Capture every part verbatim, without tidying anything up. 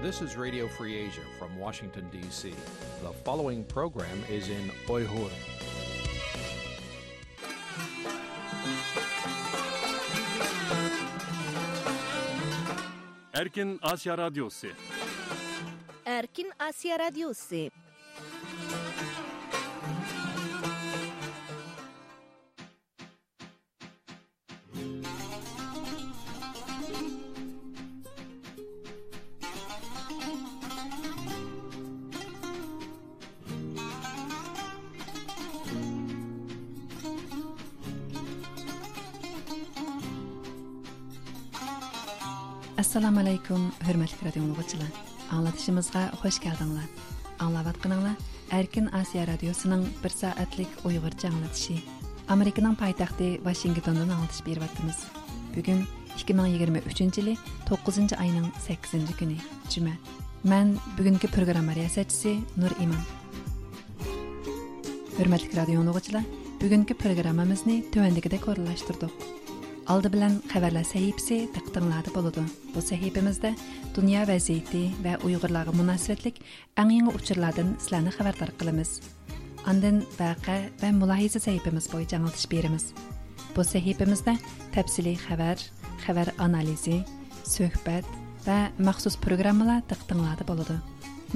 This is Radio Free Asia from Washington, D C. The following program is in Uyghur. Erkin Asya Radyosu. Erkin Asya Radyosu. ئەسسالامۇ ئەلەيكۇم، ھۆرمەتلىك رادىيو ئاڭلىغۇچىلار. ئاڭلىتىشىمىزغا خۇش كەلدىڭلار. ئاڭلاۋاتقىنىڭلار ئەركىن ئاسىيا رادىيوسىنىڭ بىر سائەتلىك ئۇيغۇرچە ئاڭلىتىشى. ئامېرىكىنىڭ پايتەختى ۋاشىنگتوندىن ئاڭلىتىش بېرىۋاتىمىز. بۈگۈن ئىككى مىڭ يىگىرمە ئۈچىنچى يىلى توققۇزىنچى ئاينىڭ سەككىزىنچى كۈنى، جۈمە. مەن بۈگۈنكى پروگرامما رىياسەتچىسى نۇر ئىمان. ھۆرمەتلىك رادىيو ئاڭلىغۇچىلار، بۈگۈنكى پروگراممىمىزنى تۆۋەندىكىدەك ئورۇنلاشتۇردۇق. ئالدى بىلەن خەۋەرلەر سەھىپىسى دىققىتىڭلاردا بولىدۇ. بۇ سەھىپىمىزدە دۇنيا ۋەزىيىتى ۋە ئۇيغۇرلارغا مۇناسىۋەتلىك ئەڭ يېڭى ئۇچۇرلاردىن سىلەرنى خەۋەردار قىلىمىز. ئاندىن ۋەقە ۋە مۇلاھىزە سەھىپىمىز بويىچە ئاڭلىتىش بېرىمىز. بۇ سەھىپىمىزدە تەپسىلىي خەۋەر، خەۋەر ئانالىزى، سۆھبەت ۋە مەخسۇس پروگراممىلار دىققىتىڭلاردا بولىدۇ.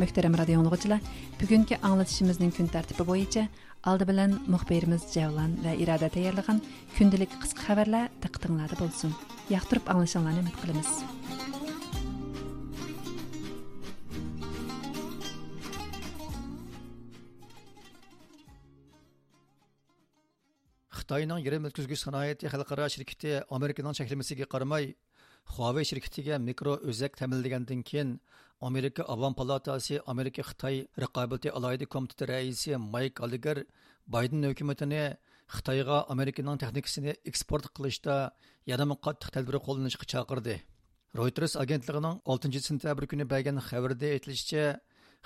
مۆھتەرەم رادىيو ئاڭلىغۇچىلار، بۈگۈنكى ئاڭلىتىشىمىزنىڭ كۈن تەرتىپى بويىچە ئالدى بىلەن مۇخبىرىمىز جەۋلان ۋە ئىرادە تەييارلىغان كۈندىلىك قىسقا خەۋەرلەر دىققىتىڭلاردا بولسۇن. ياقتۇرۇپ ئاڭلىشىڭلارنى ئۈمىد قىلىمىز. خىتاينىڭ يېرىم ئۆتكۈزگۈچ سانائىتى خەلقئارا شىركىتى ئامېرىكىنىڭ چەكلىمىسىگە قارىماي، خۇاۋېي شىركىتىگە مىكرو ئۆزەك تەمىنلىگەندىن كېيىن، ئامېرىكا ئاۋام پالاتاسى ئامېرىكا خىتاي رىقابىتى ئالاھىدە كومىتېتى رەئىسى مايك گاللېگېر بايدېن ھۆكۈمىتىنى خىتايغا ئامېرىكىنىڭ تېخنىكىسىنى ئېكسپورت قىلىشتا يەنىمۇ قاتتىق تەدبىر قوللىنىشقا چاقىردى. رويتېرس ئاگېنتلىقىنىڭ ئالتىنچى سېنتەبىر كۈنى بەرگەن خەۋىرىدە ئېيتىلىشىچە،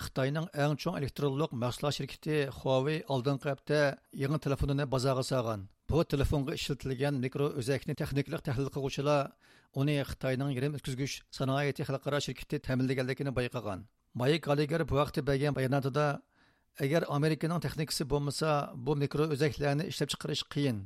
خىتاينىڭ ئەڭ چوڭ ئېلېكترونلۇق مەھسۇلات شىركىتى خۇاۋېي ئالدىنقى ھەپتە يېڭى تېلېفونىنى بازارغا سالغان. بۇ تېلېفونغا ئىشلىتىلگەن مىكرو ئۆزەكنى تېخنىكىلىق تەھلىل قىلغۇچىلار ئۇنى خىتاينىڭ يېرىم ئۆتكۈزگۈچ سانائىتى خەلقئارا شىركىتى تەمىنلىگەنلىكىنى بايقىغان. مايك گاللېگېر بۇ ھەقتە بەرگەن باياناتىدا، ئەگەر ئامېرىكىنىڭ تېخنىكىسى بولمىسا، بۇ مىكرو ئۆزەكلەرنى ئىشلەپچىقىرىش قىيىن.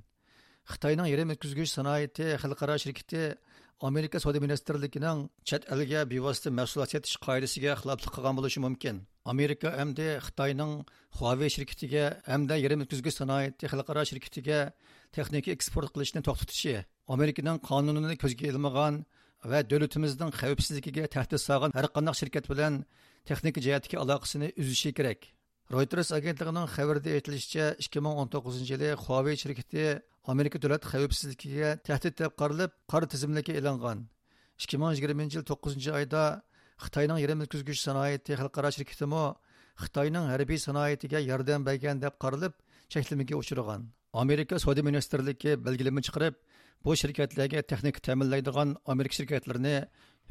خىتاينىڭ يېرىم ئۆتكۈزگۈچ سانائىتى خەلقئارا شىركىتى ئامېرىكا سودا مىنىستىرلىكىنىڭ چەت ئەلگە بىۋاسىتە مەھسۇلات سېتىش قائىدىسىگە خىلاپلىق قىلغان بولۇشى مۇمكىن. ئامېرىكا ئەمدى خىتاينىڭ خۇاۋېي شىركىتىگە ھەمدە يېرىم ئۆتكۈزگۈچ سانائىتى خەلقئارا شىركىتىگە تېخنىكا ئېكسپورت قىلىشنى توختىتىشى، ئامېرىكىنىڭ قانۇنىنى كۆزگە ئىلمىغان ۋە دۆلىتىمىزنىڭ خەۋپسىزلىكىگە تەھدىت سالغان ھەرقانداق شىركەت بىلەن تېخنىكا جەھەتتىكى ئالاقىسىنى ئۈزۈشى كېرەك. رويتېرس ئاگېنتلىقىنىڭ خەۋىرىدە ئېيتىلىشىچە، ئىككى مىڭ ئون توققۇزىنچى يىلى خۇاۋېي شىركىتى ئامېرىكا دۆلەت خەۋپسىزلىكىگە تەھدىت دەپ قارىلىپ، قارا تىزىملىككە ئېلىنغان. ئىككى مىڭ يىگىرمىنچى يىل توققۇزىنچى ئايدا خىتاينىڭ يېرىم ئۆتكۈزگۈچ سانائىتى خەلقئارا شىركىتىمۇ خىتاينىڭ ھەربىي سانائىتىگە ياردەم بەرگەن دەپ قارىلىپ، چەكلىمىگە ئۇچرىغان. ئامېرىكا سودا مىنىستىرلىكى بەلگىلىمە چىقىرىپ، بۇ شىركەتلەرگە تېخنىكا تەمىنلەيدىغان ئامېرىكا شىركەتلىرىنى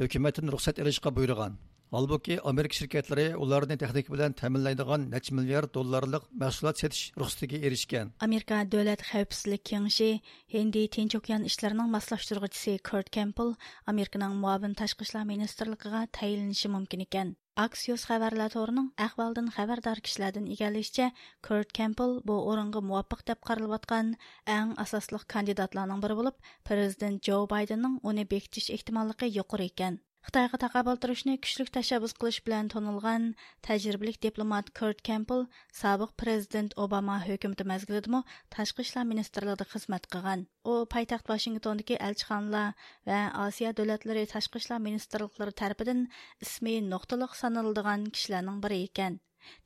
ھۆكۈمەتتىن رۇخسەت ئېلىشقا بۇيرۇغان. ھالبۇكى، ئامېرىكا شىركەتلىرى ئۇلارنى تېخنىكا بىلەن تەمىنلەيدىغان نەچچە مىليارد دوللارلىق مەھسۇلات سېتىش رۇخسىتىگە ئېرىشكەن. ئامېرىكا دۆلەت خەۋپسىزلىك كېڭىشى ھىندى تىنچ ئوكيان ئىشلىرىنىڭ ماسلاشتۇرغۇچىسى كۇرت كېمپبېل ئامېرىكىنىڭ مۇئاۋىن تاشقى ئىشلار مىنىستىرلىقىغا تەيىنلىنىشى مۇمكىن ئىكەن. ئاكسىيوس خەۋەرلەر تورىنىڭ ئەھۋالدىن خەۋەردار كىشىلەردىن ئىگىلىشىچە، كۇرت كېمپبېل بۇ ئورۇنغا مۇۋاپىق دەپ قارىلىۋاتقان ئەڭ ئاساسلىق كاندىداتلارنىڭ بىرى بولۇپ، پىرېزىدېنت جو بايدېننىڭ ئۇنى بېكىتىش ئېھتىماللىقى يۇقىرى ئىكەن. خىتايغا تاقابىل تۇرۇشنى كۈچلۈك تەشەببۇس قىلىش بىلەن تونۇلغان تەجرىبىلىك دىپلومات كۇرت كېمپبېل سابىق پىرېزىدېنت ئوباما ھۆكۈمىتى مەزگىلىدىمۇ تاشقى ئىشلار مىنىستىرلىقىدا خىزمەت قىلغان. ئۇ پايتەخت ۋاشىنگتوندىكى ئەلچىخانىلار ۋە ئاسىيا دۆلەتلىرى تاشقى ئىشلار مىنىستىرلىقلىرى تەرىپىدىن ئىسمى نۇقتىلىق سانىلىدىغان كىشىلەرنىڭ بىرى ئىكەن.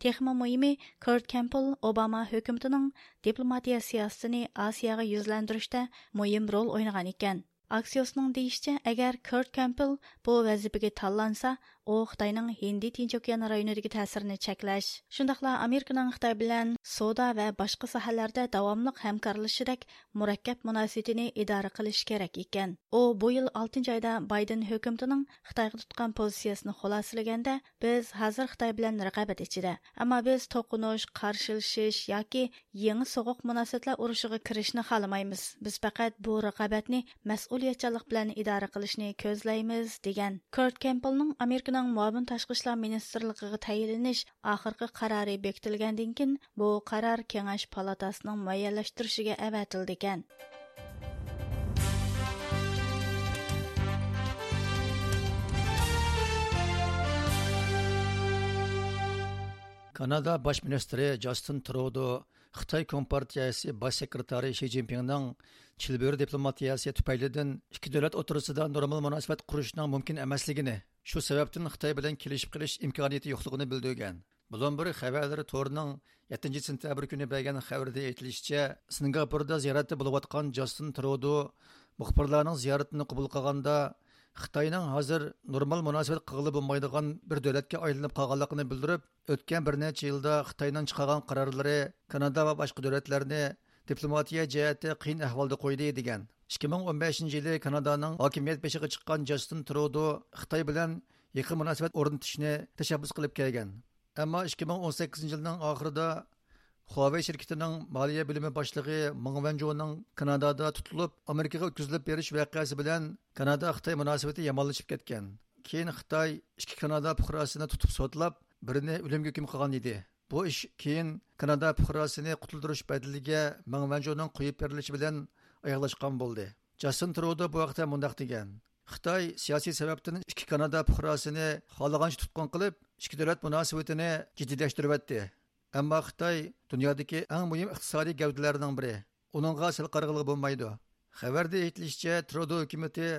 تېخىمۇ مۇھىمى، كۇرت كېمپبېل ئوباما ھۆكۈمىتىنىڭ دىپلوماتىيە سىياسىتىنى ئاسىياغا يۈزلەندۈرۈشتە مۇھىم رول ئوينىغان ئىكەن. ئاكسىيوسنىڭ دېيىشىچە، ئەگەر كۇرت كېمپبېل بۇ ۋەزىپىگە تاللانسا، ئۇ خىتاينىڭ ھىندى تىنچ ئوكيان رايونىدىكى تەسىرىنى چەكلەش، شۇنداقلا ئامېرىكىنىڭ خىتاي بىلەن سودا ۋە باشقا ساھەلەردە داۋاملىق ھەمكارلىشىشىدەك مۇرەككەپ مۇناسىۋىتىنى ئىدارە قىلىشى كېرەك ئىكەن. ئۇ بۇ يىل ئالتىنچى ئايدا بايدېن ھۆكۈمىتىنىڭ خىتايغا تۇتقان پوزىتسىيىسىنى خۇلاسىلىگەندە، بىز ھازىر خىتاي بىلەن رىقابەت ئىچىدە، ئەمما بىز توقۇنۇش، قارشىلىشىش ياكى يېڭى سوغۇق مۇناسىۋەتلەر ئۇرۇشىغا كىرىشنى خالىمايمىز. بىز پەقەت بۇ رىقابەتنى مەسئۇلىيەتچانلىق بىلەن ئىدارە قىلىشنى كۆزلەيمىز، دېگەن. كۇرت كېمپبېلنىڭ ئامېرىكىنىڭ مۇئاۋىن تاشقى ئىشلار مىنىستىرلىقىغا تەيىنلىنىش ئاخىرقى قارارى بېكىتىلگەندىن كېيىن، بۇ قارار كېڭەش پالاتاسىنىڭ مۇئەييەنلەشتۈرۈشىگە ئەۋەتىلىدىكەن. كانادا باش مىنىستىرى جاستىن ترۇدو خىتاي كومپارتىيەسى باش سېكرېتارى شى جىنپىڭنىڭ چىلبۆرە دىپلوماتىيەسى تۈپەيلىدىن ئىككى دۆلەت ئوتتۇرىسىدا نورمال مۇناسىۋەت قۇرۇشنىڭ مۇمكىن ئەمەسلىكىنى، شۇ سەۋەبتىن خىتاي بىلەن كېلىشىپ قېلىش ئىمكانىيىتى يوقلۇقىنى بىلدۈرگەن. بلومبېرگ خەۋەرلىرى تورىنىڭ يەتتىنچى سېنتەبىر كۈنى بەرگەن خەۋىرىدە ئېيتىلىشىچە، سىنگاپوردا زىيارەتتە بولۇۋاتقان جاستىن ترۇدو مۇخبىرلارنىڭ زىيارىتىنى قوبۇل قىلغاندا، خىتاينىڭ ھازىر نورمال مۇناسىۋەت قىلغىلى بولمايدىغان بىر دۆلەتكە ئايلىنىپ قالغانلىقىنى بىلدۈرۈپ، ئۆتكەن بىر نەچچە يىلدا خىتاينىڭ چىقارغان قارارلىرى كانادا ۋە باشقا دۆلەتلەرنى دىپلوماتىيە جەھەتتە قىيىن ئەھۋالدا قويدى، دېگەن. ئىككى مىڭ ئون بەشىنچى يىلى كانادانىڭ ھاكىمىيەت بېشىغا چىققان جاستىن ترۇدو خىتاي بىلەن يېقىن مۇناسىۋەت ئورنىتىشنى تەشەببۇس قىلىپ كەلگەن. ئەمما ئىككى مىڭ ئون سەككىزىنچى يىلنىڭ ئاخىرىدا خۇاۋېي شىركىتىنىڭ مالىيە بۆلۈمى باشلىقى مېڭ ۋەنجۇنىڭ كانادادا تۇتۇلۇپ، ئامېرىكىغا ئۆتكۈزۈلۈپ بېرىش ۋەقەسى بىلەن كانادا خىتاي مۇناسىۋىتى يامانلىشىپ كەتكەن. كېيىن خىتاي ئىككى كانادا پۇقراسىنى تۇتۇپ سوتلاپ، بىرىنى ئۆلۈمگە ھۆكۈم قىلغان ئىدى. بۇ ئىش كېيىن كانادا پۇقراسىنى قۇتۇلدۇرۇش بەدىلىگە مېڭ ۋەنجۇنىڭ قويۇپ بېرىلىشى بىلەن ئاياغلاشقان بولدى. جاستىن ترۇدو بۇ ھەقتە مۇنداق دېگەن: خىتاي سىياسىي سەۋەبتىن ئىككى كانادا پۇقراسىنى خالىغانچە تۇتقۇن قىلىپ، ئىككى دۆلەت مۇناسىۋىتىنى جىددىيلەشتۈرۈۋەتتى. ئەمما خىتاي دۇنيادىكى ئەڭ مۇھىم ئىقتىسادىي گەۋدىلەرنىڭ بىرى. ئۇنىڭغا سەل قارىغىلى بولمايدۇ. خەۋەردە ئېيتىلىشىچە، ترۇدو ھۆكۈمىتى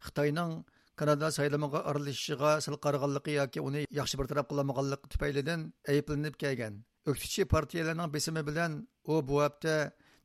خىتاينىڭ كانادا سايلىمىغا ئارىلىشىشىغا سەل قارىغانلىقى ياكى ئۇنى ياخشى بىر تەرەپ قىلالمىغانلىقى تۈپەيلىدىن ئەيىبلىنىپ كەلگەن. ئۆكتىچى پارتىيەلەرنىڭ بېسىمى بىلەن ئۇ بۇ ھەپتە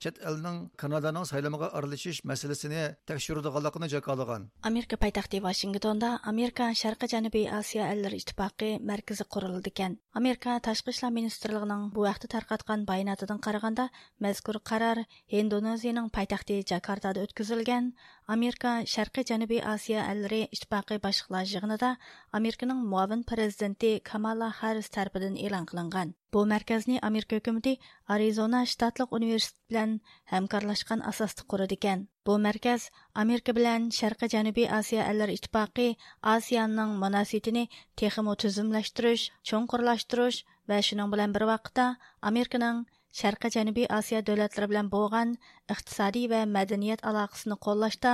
چەت ئەلنىڭ كانادانىڭ سايلىمىغا ئارىلىشىش مەسىلىسىنى تەكشۈرىدىغانلىقىنى جاكارلىغان. ئامېرىكا پايتەختى ۋاشىنگتوندا ئامېرىكا شەرقىي جەنۇبىي ئاسىيا ئەللىرى ئىتتىپاقى مەركىزى قۇرۇلىدىكەن. ئامېرىكا تاشقى ئىشلار مىنىستىرلىقىنىڭ بۇ ھەقتە تارقاتقان باياناتىدىن قارىغاندا، مەزكۇر قارار ھىندونېزىيىنىڭ پايتەختى جاكارتادا ئۆتكۈزۈلگەن ئامېرىكا شەرقىي جەنۇبىي ئاسىيا ئەللىرى ئىتتىپاقى باشلىقلار يىغىنىدا ئامېرىكىنىڭ مۇئاۋىن پىرېزىدېنتى كامالا ھاررىس تەرىپىدىن ئېلان قىلىنغان. بۇ مەركەزنى ئامېرىكا ھۆكۈمىتى ئارىزونا شتاتلىق ئۇنىۋېرسىتېت بىلەن ھەمكارلاشقان ئاساستا قۇرىدىكەن. بۇ مەركەز ئامېرىكا بىلەن شەرقىي جەنۇبىي ئاسىيا ئەللىرى ئىتتىپاقى، ئاسىياننىڭ مۇناسىۋىتىنى تېخىمۇ تۈزۈملەشتۈرۈش، چوڭقۇرلاشتۇرۇش ۋە شۇنىڭ بىلەن بىر ۋاقىتتا ئامېرىكىنىڭ شەرقىي جەنۇبىي ئاسىيا دۆلەتلىرى بىلەن بولغان ئىقتىسادىي ۋە مەدەنىيەت ئالاقىسىنى قوللاشتا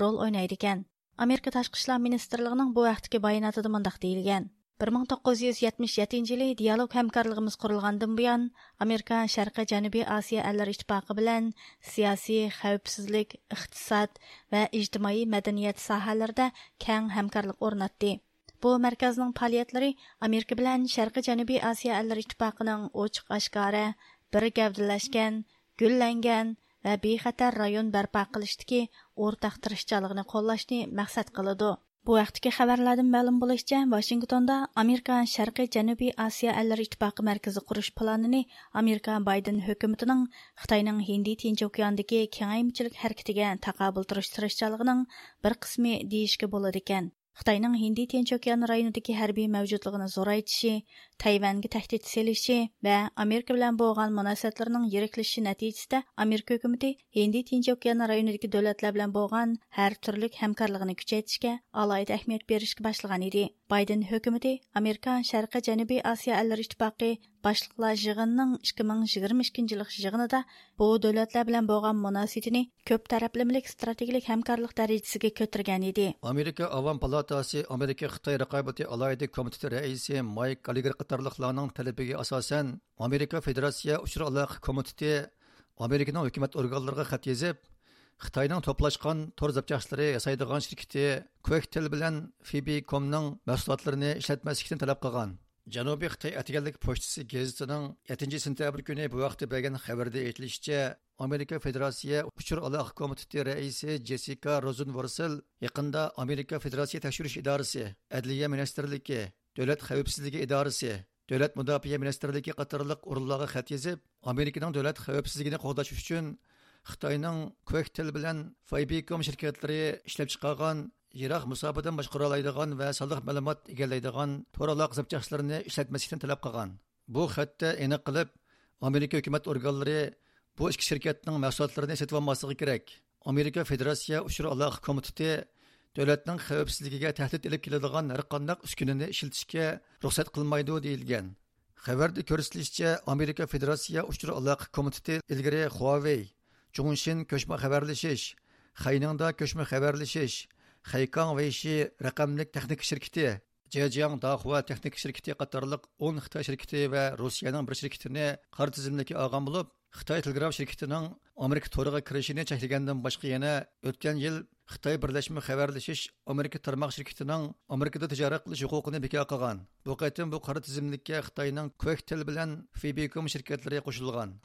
رول ئوينايدىكەن. ئامېرىكا تاشقى ئىشلار مىنىستىرلىقىنىڭ بۇ ھەقتىكى باياناتىدا مۇنداق دېيىلگەن: بىر مىڭ توققۇز يۈز يەتمىش يەتتىنچى يىلى دىيالوگ ھەمكارلىقىمىز قۇرۇلغاندىن بۇيان، ئامېرىكا شەرقىي جەنۇبىي ئاسىيا ئەللىرى ئىتتىپاقى بىلەن سىياسىي، خەۋپسىزلىك، ئىقتىساد ۋە ئىجتىمائىي مەدەنىيەت ساھەلىرىدە كەڭ ھەمكارلىق ئورناتتى. بۇ مەركەزنىڭ پائالىيەتلىرى ئامېرىكا بىلەن شەرقىي جەنۇبىي ئاسىيا ئەللىرى ئىتتىپاقىنىڭ ئوچۇق ئاشكارا، بىر گەۋدىلەشكەن، گۈللەنگەن ۋە بىخەتەر رايون بەرپا قىلىشتىكى ئورتاق تىرىشچانلىقىنى قوللاشنى مەقسەت قىلىدۇ. بۇ ھەقتىكى خەۋەرلەردىن مەلۇم بولۇشىچە، ۋاشىنگتوندا ئامېرىكا شەرقىي جەنۇبىي ئاسىيا ئەللىرى ئىتتىپاقى مەركىزى قۇرۇش پىلانىنى ئامېرىكا بايدېن ھۆكۈمىتىنىڭ خىتاينىڭ ھىندى تىنچ ئوكياندىكى كېڭەيمىچىلىك ھەرىكىتىگە تاقابىل تۇرۇش تىرىشچانلىقىنىڭ بىر قىسمى دېيىشكە بولىدىكەن. خىتاينىڭ ھىندى تىنچ ئوكيان رايونىدىكى ھەربىي مەۋجۇتلۇقىنى زورايتىشى، تەيۋەنگە تەھدىت سېلىشى ۋە ئامېرىكا بىلەن بولغان مۇناسىۋەتلىرىنىڭ يىرىكلىشىشى نەتىجىسىدە، ئامېرىكا ھۆكۈمىتى ھىندى تىنچ ئوكيان رايونىدىكى دۆلەتلەر بىلەن بولغان ھەر تۈرلۈك ھەمكارلىقىنى كۈچەيتىشكە ئالاھىدە ئەھمىيەت بېرىشكە باشلىغان ئىدى. بايدېن ھۆكۈمىتى ئامېرىكا شەرقىي جەنۇبىي ئاسىيا ئەللىرى ئىتتىپاقى باشلىقلار يىغىنىنىڭ ئىككى مىڭ يىگىرمە ئىككىنچى يىللىق يىغىنىدا بۇ دۆلەتلەر بىلەن بولغان مۇناسىۋىتىنى كۆپ تەرەپلىمىلىك ئىستراتېگىيىلىك ھەمكارلىق دەرىجىسىگە كۆتۈرگەن ئىدى. ئامېرىكا ئاۋام پالاتاسى ئامېرىكا خىتاي رىقابىتى ئالاھىدە كومىتېتى رەئىسى مايك گاللېگېر قاتارلىقلارنىڭ تەلىپىگە ئاساسەن، ئامېرىكا فېدېراتسىيە ئۇچۇر ئالاقە كومىتېتى ئامېرىكىنىڭ ھۆكۈمەت ئورگانلىرىغا خەت يېزىپ، خىتاينىڭ توپلاشقان تور زاپچاسلىرى ياسايدىغان شىركىتى كۇۋەكتېل بىلەن فېبىكومنىڭ مەھسۇلاتلىرىنى ئىشلەتمەسلىكنى تەلەپ قىلغان. جەنۇبىي خىتاي ئەتىگەنلىك پوچتىسى گېزىتىنىڭ يەتتىنچى سېنتەبىر كۈنى بۇ ھەقتە بەرگەن خەۋىرىدە ئېيتىلىشىچە، ئامېرىكا فېدېراتسىيە ئۇچۇر ئالاقە كومىتېتى رەئىسى جېسسىكا روزېنۋورسېل يېقىندا ئامېرىكا فېدېراتسىيە تەكشۈرۈش ئىدارىسى، ئەدلىيە مىنىستىرلىكى، دۆلەت خەۋپسىزلىكى ئىدارىسى، دۆلەت مۇداپىئە مىنىستىرلىكى قاتارلىق ئورۇنلارغا خەت يېزىپ، ئامېرىكىنىڭ دۆلەت خەۋپسىزلىكىنى قوغداش ئۈچۈن خىتاينىڭ كوكتېل بىلەن فېيبىكوم شىركەتلىرى ئىشلەپچىقارغان يىراق مۇساپىدىن باشقۇرالايدىغان ۋە سانلىق مەلۇمات ئىگىلەيدىغان تور ئالاقە زاپچاسلىرىنى ئىشلەتمەسلىكنى تەلەپ قىلغان. بۇ خەتتە ئېنىق قىلىپ، ئامېرىكا ھۆكۈمەت ئورگانلىرى بۇ ئىككى شىركەتنىڭ مەھسۇلاتلىرىنى سېتىۋالماسلىقى كېرەك. ئامېرىكا فېدېراتسىيە ئۇچۇر ئالاقە كومىتېتى دۆلەتنىڭ خەۋپسىزلىكىگە تەھدىت ئېلىپ كېلىدىغان ھەرقانداق ئۈسكۈنىنى ئىشلىتىشكە رۇخسەت قىلمايدۇ، دېيىلگەن. خەۋەردە كۆرسىتىلىشىچە، ئامېرىكا فېدېراتسىيە ئۇچۇر ئالاقە كومىتېتى ئىلگىرى خۇاۋېي، جۇڭشىن كۆچمە خەۋەرلىشىش، خەينىڭدا كۆچمە خەۋەرلىشىش، خەيكاڭ ۋېيشى رەقەملىك تېخنىكا شىركىتى، جېجياڭ داخۇا تېخنىكا شىركىتى قاتارلىق ئون خىتاي شىركىتى ۋە روسىيەنىڭ بىر شىركىتىنى قارا تىزىملىككە ئالغان بولۇپ، خىتاي تېلېگراف شىركىتىنىڭ ئامېرىكا تورىغا كىرىشىنى چەكلىگەندىن باشقا يەنە ئۆتكەن يىل خىتاي بىرلەشمە خەۋەرلىشىش ئامېرىكا تارماق شىركىتىنىڭ ئامېرىكىدا تىجارەت قىلىش ھوقۇقىنى بىكار قىلغان. بۇ قېتىم بۇ قارا تىزىملىككە خىتاينىڭ كوكتېل بىلەن فېيبىكوم شىركەتلىرى قوشۇلغان.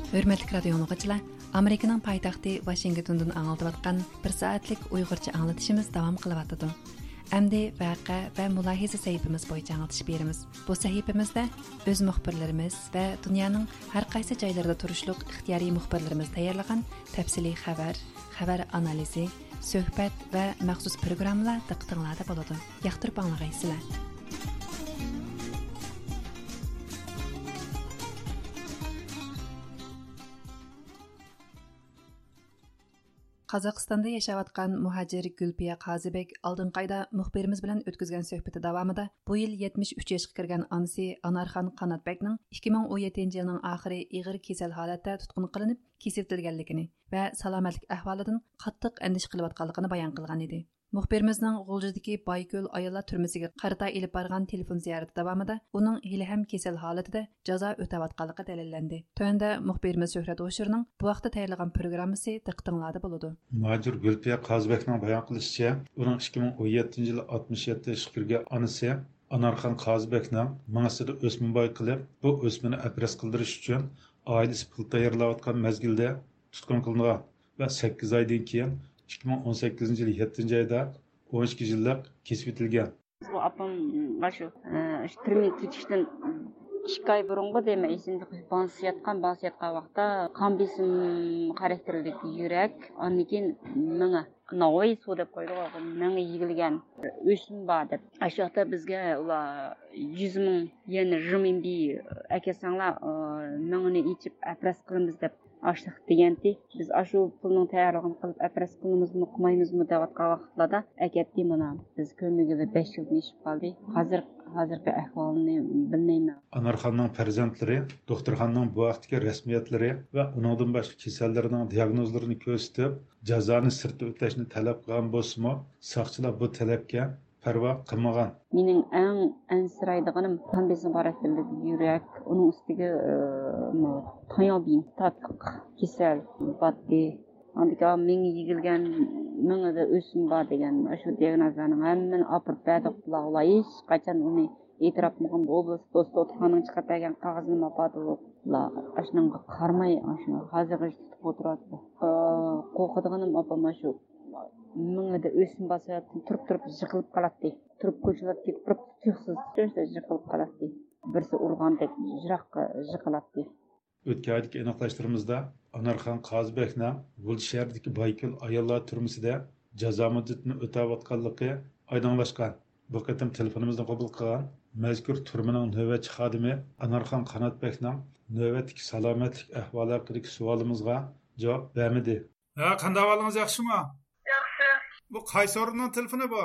ھۆرمەتلىك رادىيو ئاڭلىغۇچىلار، ئامېرىكىنىڭ پايتەختى ۋاشىنگتوندىن ئاڭلىتىۋاتقان بىر سائەتلىك ئۇيغۇرچە ئاڭلىتىشىمىز داۋام قىلىۋاتىدۇ. ئەمدى ۋەقە ۋە مۇلاھىزە سەھىپىمىز بويىچە ئاڭلىتىش بېرىمىز. بۇ سەھىپىمىزدە ئۆز مۇخبىرلىرىمىز ۋە دۇنيانىڭ ھەر قايسى جايلىرىدا تۇرۇشلۇق ئىختىيارىي مۇخبىرلىرىمىز تەييارلىغان تەپسىلىي خەۋەر، خەۋەر ئانالىزى، سۆھبەت ۋە مەخسۇس پروگراممىلار دىققىتىڭلاردا بولىدۇ. ياقتۇرۇپ ئاڭلىغايسىلەر. قازاقىستاندا ياشاۋاتقان مۇھاجىر گۈلپىيە قازىبېك ئالدىنقى ئايدا مۇخبىرىمىز بىلەن ئۆتكۈزگەن سۆھبىتى داۋامىدا بۇ يىل يەتمىش ئۈچ ياشقا كىرگەن ئانىسى ئانارخان قاناتبەكنىڭ ئىككى مىڭ ئون يەتتىنچى يىلنىڭ ئاخىرى ئېغىر كېسەل ھالەتتە تۇتقۇن قىلىنىپ، كېسىۋېتىلگەنلىكىنى ۋە سالامەتلىك ئەھۋالىدىن قاتتىق ئەندىشە قىلىۋاتقانلىقىنى بايان قىلغان ئىدى. مۇخبىرىمىزنىڭ غۇلجىدىكى بايكۆل ئاياللار تۈرمىسىگە قارىتا ئېلىپ بارغان تېلېفون زىيارىتى داۋامىدا ئۇنىڭ ھېلىھەم كېسەل ھالىتىدە جازا ئۆتەۋاتقانلىقى دەلىللەندى. تۆۋەندە مۇخبىرىمىز شۆھرەت ھوشۇرنىڭ بۇ ھەقتە تەييارلىغان پروگراممىسى دىققىتىڭلاردا بولىدۇ. مۇھاجىر گۈلپىيە قازىبەكنىڭ بايان قىلىشىچە، ئۇنىڭ ئىككى مىڭ ئون يەتتىنچى يىلى ئاتمىش يەتتە ياشقا كىرگەن ئانىسى ئانارخان قازىبەكنىڭ مېڭىسىدە ئۆسمە بايقىلىپ، بۇ ئۆسمىنى ئەپرەز قىلدۇرۇش ئۈچۈن ئائىلىسى پۇل تەييارلاۋاتقان مەزگىلدە تۇتقۇن قىلىنغان ۋە سەككىز ئايدىن كېيىن، ئىككى مىڭ ئون سەككىزىنچى يىل يەتتىنچى ئايدا، ئون ئىككى يىللىق كېسىۋېتىلگەن. بۇ ئاپام ئاشۇ، ئە، ئاشۇ تۈرمىگە كېتىشتىن ئىككى ئاي بۇرۇنغۇ دەيمەن، ئېسىمدە بانسا ياتقان، بانسا ياتقان ۋاقىتتا قان بېسىم خاراكتېرلىك يۈرەك، ئاندىن كېيىن مېڭە، ناۋاي سۇ دەپ قويىدىغۇ، مېڭە يېگىلگەن، ئۆسمە بار دەپ. ئاشۇ ۋاقىتتا بىزگە ئۇلار يۈز مىڭ يەن رېمىنبى ئەكەلسەڭلار، ئە، مېڭىنى ئېچىپ ئەپرەز قىلىمىز دەپ ئاشلىق دېگەنتى. بىز ئاشۇ پۇلنىڭ تەييارلىقىنى قىلىپ، ئەپرەس قىلىمىزمۇ، قىلمايمىزمۇ دەۋاتقان ۋاقىتلاردا ئەكەتتى مانا. بىز كۆرمىگىلى بەش يىلدىن ئېشىپ قالدى. ھازىر، ھازىرقى ئەھۋالىنى بىلمەيمەن. ئانارخاننىڭ پەرزەنتلىرى دوختۇرخانىنىڭ بۇ ھەقتىكى رەسمىيەتلىرى ۋە ئۇنىڭدىن باشقا كېسەللىرىنىڭ دىياگنوزلىرىنى كۆرسىتىپ، جازانى سىرتتا ئۆتەشنى تەلەپ قىلغان بولسىمۇ، ساقچىلار بۇ تەلەپكە پەرۋا قىلمىغان. مېنىڭ ئەڭ ئەنسىرەيدىغىنىم قان بېسىم خاراكتېرلىك يۈرەك، ئۇنىڭ ئۈستىگە، ئى، مۇ-، تاياۋبىن تاتلىق كېسەل باتتى. ئاندىكىن مېڭە يېگىلگەن، مېڭىدە ئۆسمە بار دېگەن ئاشۇ دىياگنوزلارنىڭ ھەممىنى ئاپىرىپ بەردۇق بۇلارغا. ئۇلار ھېچقاچان ئۇنى ئېتىراپ قىلمىغان. بۇ ئوبلاست دوختۇرخانىنىڭ چىقىرىپ بەرگەن قەغىزىنى ئاپاردۇق. بۇلار ئاشۇنىڭغا قارىماي، ئاشۇ ھازىرغىچە تۇتۇپ ئولتۇرۇۋاتىدۇ. ئى، قورقىدىغىنىم ئاپام ئاشۇ مېڭىدە ئۆسمە بار سەۋەبتىن تۇرۇپ-تۇرۇپ يىقىلىپ قالاتتى. تۇرۇپ كوچىلاردا كېتىپ تۇرۇپ تۇيۇقسىز شۇنداق يىقىلىپ قالاتتى. بىرسى ئۇرغاندەك يىراققا يىقىلاتتى. ئۆتكەن ئايدىكى ئېنىقلاشلىرىمىزدا ئانارخان قازىبەكنىڭ غۇلجا شەھىرىدىكى بايكۆل ئاياللار تۈرمىسىدە جازا مۇددىتىنى ئۆتەۋاتقانلىقى ئايدىڭلاشقان. بۇ قېتىم تېلېفونىمىزنى قوبۇل قىلغان مەزكۇر تۈرمىنىڭ نۆۋەتچى خادىمى ئانارخان قاناتبەكنىڭ نۆۋەتتىكى سالامەتلىك ئەھۋالى ھەققىدىكى سوئالىمىزغا جاۋاب بەرمىدى. ھە، قانداق ئەھۋالىڭىز، ياخشىمۇ؟ ياخشى. بۇ قايسى ئورۇننىڭ تېلېفونى بۇ؟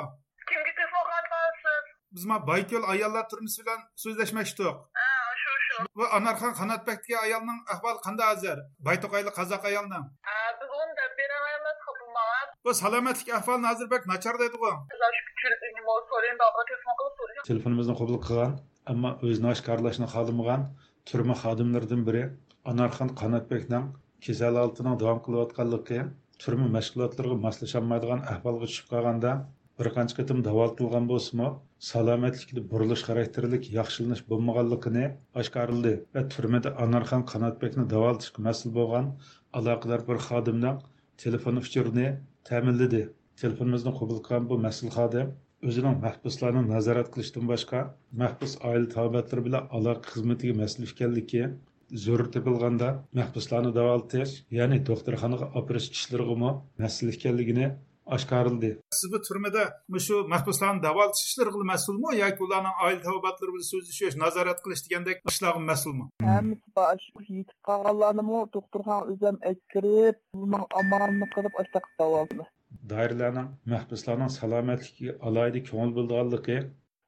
كىمگە تېلېفون قىلىۋاتقانسىز؟ بىز ما بايكۆل ئاياللار تۈرمىسى بىلەن سۆزلەشمەكچىدۇق. ھە، شۇ، شۇ. بۇ ئانارخان قاناتبەك دېگەن ئايالنىڭ ئەھۋالى قانداق ھازىر؟ بايتوقايلىق قازاق ئايالنىڭ. ھە، بىز ئۇنى دەپ بېرەلمەيمىز، بۇ ماڭا. بۇ سالامەتلىك ئەھۋالىنى ھازىر بەك ناچار دەيدىغۇ. بىز ئاشۇ كۈچۈرۈپ، نېمە، سورىيىنى بارغا تېلېفون قىلىپ سورىيىمىز. تېلېفونىمىزنى قوبۇل قىلغان، ئەمما ئۆزىنى ئاشكارىلاشنى خالىمىغان تۈرمە خادىملىرىدىن بىرى ئانارخان قاناتبەكنىڭ كېسەل ھالىتىنىڭ داۋام قىلىۋاتقانلىقى، تۈرمە مەشغۇلاتلىرىغا ماسلىشالمايدىغان ئەھۋالغا چۈشۈپ قالغاندا، بىر قانچە قېتىم داۋالىتىلغان بولسىمۇ، سالامەتلىكىدە بۇرۇلۇش خاراكتېرلىك ياخشىلىنىش بولمىغانلىقىنى ئاشكارىلىدى ۋە تۈرمىدە ئانارخان قاناتبەكنى داۋالىتىشقا مەسئۇل بولغان ئالاقىدار بىر خادىمنىڭ تېلېفون ئۇچۇرىنى تەمىنلىدى. تېلېفونىمىزنى قوبۇل قىلغان بۇ مەسئۇل خادىم ئۆزىنىڭ مەھبۇسلارنى نازارەت قىلىشتىن باشقا، مەھبۇس ئائىلە تاۋابىئاتلىرى بىلەن ئالاقە خىزمىتىگە مەسئۇل ئىكەنلىكى، زۆرۈر تېپىلغاندا مەھبۇسلارنى داۋالىتىش، يەنى دوختۇرخانىغا ئاپىرىش ئىشلىرىغىمۇ مەسئۇل ئىكەنلىكىنى ئاشكارىلىدى. سىز بۇ تۈرمىدە مۇشۇ مەھبۇسلارنى داۋالىتىش ئىشلىرىغىلا مەسئۇلمۇ ياكى ئۇلارنىڭ ئائىلە تاۋابىئاتلىرى بىلەن سۆزلىشىش، نازارەت قىلىش دېگەندەك ئىشلارغا مەسئۇلمۇ؟ ھەممىسى بار. شۇ يېتىپ قالغانلارنىمۇ دوختۇرخانىغا ئۆزۈم ئەكىرىپ، ئۇنىڭ ئامالىنى قىلىپ، ئاشۇنداق داۋالىدىم. دائىرىلەرنىڭ مەھبۇسلارنىڭ سالامەتلىكىگە ئالاھىدە كۆڭۈل بۆلىدىغانلىقى،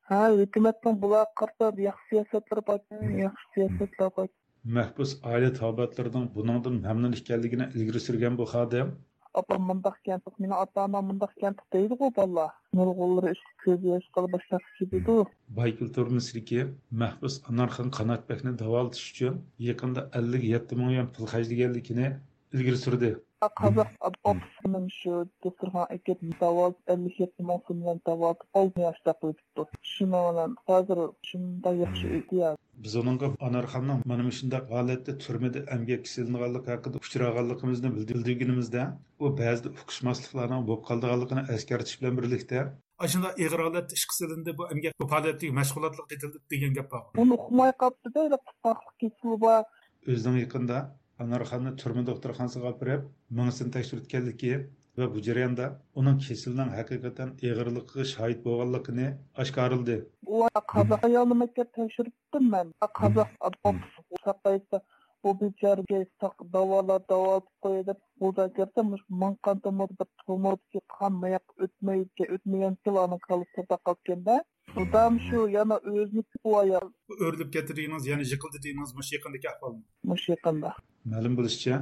ھە، ھۆكۈمەتنىڭ بۇلارغا قارىتا ياخشى سىياسەتلىرى بار، ياخشى سىياسەتلەر بار. مەھبۇس ئائىلە تاۋابىئاتلىرىنىڭ بۇنىڭدىن مەمنۇن ئىكەنلىكىنى ئىلگىرى سۈرگەن بۇ خادىم، ئاپام مۇنداق كەمتۇق، مېنىڭ ئاتا-ئانام مۇنداق كەمتۇق دەيدىغۇ بالىلار. نۇرغۇنلىرى ئىشقا كۆز ياش قىلىپ باشلاپ كېتىدۇ. بايكۆل تۈرمىسىدىكى مەھبۇس ئانارخان قاناتبەكنى داۋالىتىش ئۈچۈن يېقىندا ئەللىك يەتتە مىڭ يۈەن پۇل خەجلىگەنلىكىنى ئىلگىرى سۈردى. قازاق ئوفىسىنىڭ شۇ دوختۇرخانىغا ئەكېلىپ داۋالىتىپ، ئەللىك يەتتە مىڭ سوم بىلەن داۋالىتىپ، ئالتە ياشتا قىلىپ كېتىپتۇ. شۇنىڭ بىلەن ھازىر شۇنداق ياخشى ئۆتىدۇ. بىز ئۇنىڭغا ئانارخاننىڭ مانا مۇشۇنداق ھالەتتە تۈرمىدە ئەمگەككە سېلىنغانلىقى ھەققىدە ئۇچرىغانلىقىمىزنى بىلدۈرگىنىمىزدە، ئۇ بەزىدە ئۇقۇشماسلىقلارنىڭ بولۇپ قالىدىغانلىقىنى ئەسكەرتىش بىلەن بىرلىكتە، ئاشۇنداق ئېغىر ھالەتتە ئىشقا سېلىندى، بۇ ئەمگەك پائالىيەتلىرىگە، مەشغۇلاتلىرىغا قېتىلدى دېگەن گەپ بار. ئۇنى ئۇقماي قاپتۇ-دە، تۇتقاقلىق كېسىلى بار. ئۆزىنىڭ يېقىندا ئانارخاننى تۈرمە دوختۇرخانىسىغا ئاپىرىپ، مېڭىسىنى تەكشۈرتكەنلىكى ۋە بۇ جەرياندا ئۇنىڭ كېسىلىنىڭ ھەقىقەتەن ئېغىرلىقىغا شاھىت بولغانلىقىنى ئاشكارىلىدى. ئۇ قازاق ئايالنى مەكتەپ تەكشۈرتتۈم مەن. قازاق ئوفىس ساقايسا، بۇ بىچارىگە ساق داۋالا، داۋالىتىپ قوياي دەپ، بۇدا كىرسە، مۇشۇ مىڭ قان تومۇردا بىر تومۇردىكى قان ماياققا ئۆتمەيدىكەن، ئۆتمىگەنكىلا ئانىڭ كاللىسىدا قالىدىكەن-دە. ئۇدام شۇ يەنە ئۆزىنىڭكى بۇ ئايال. ئۆرۈلۈپ كەتتى دېگىنىڭىز، يەنى يىقىلدى دېگىنىڭىز مۇشۇ يېقىندىكى ئەھۋالمۇ؟ مۇشۇ يېقىندا. مەلۇم بولۇشىچە،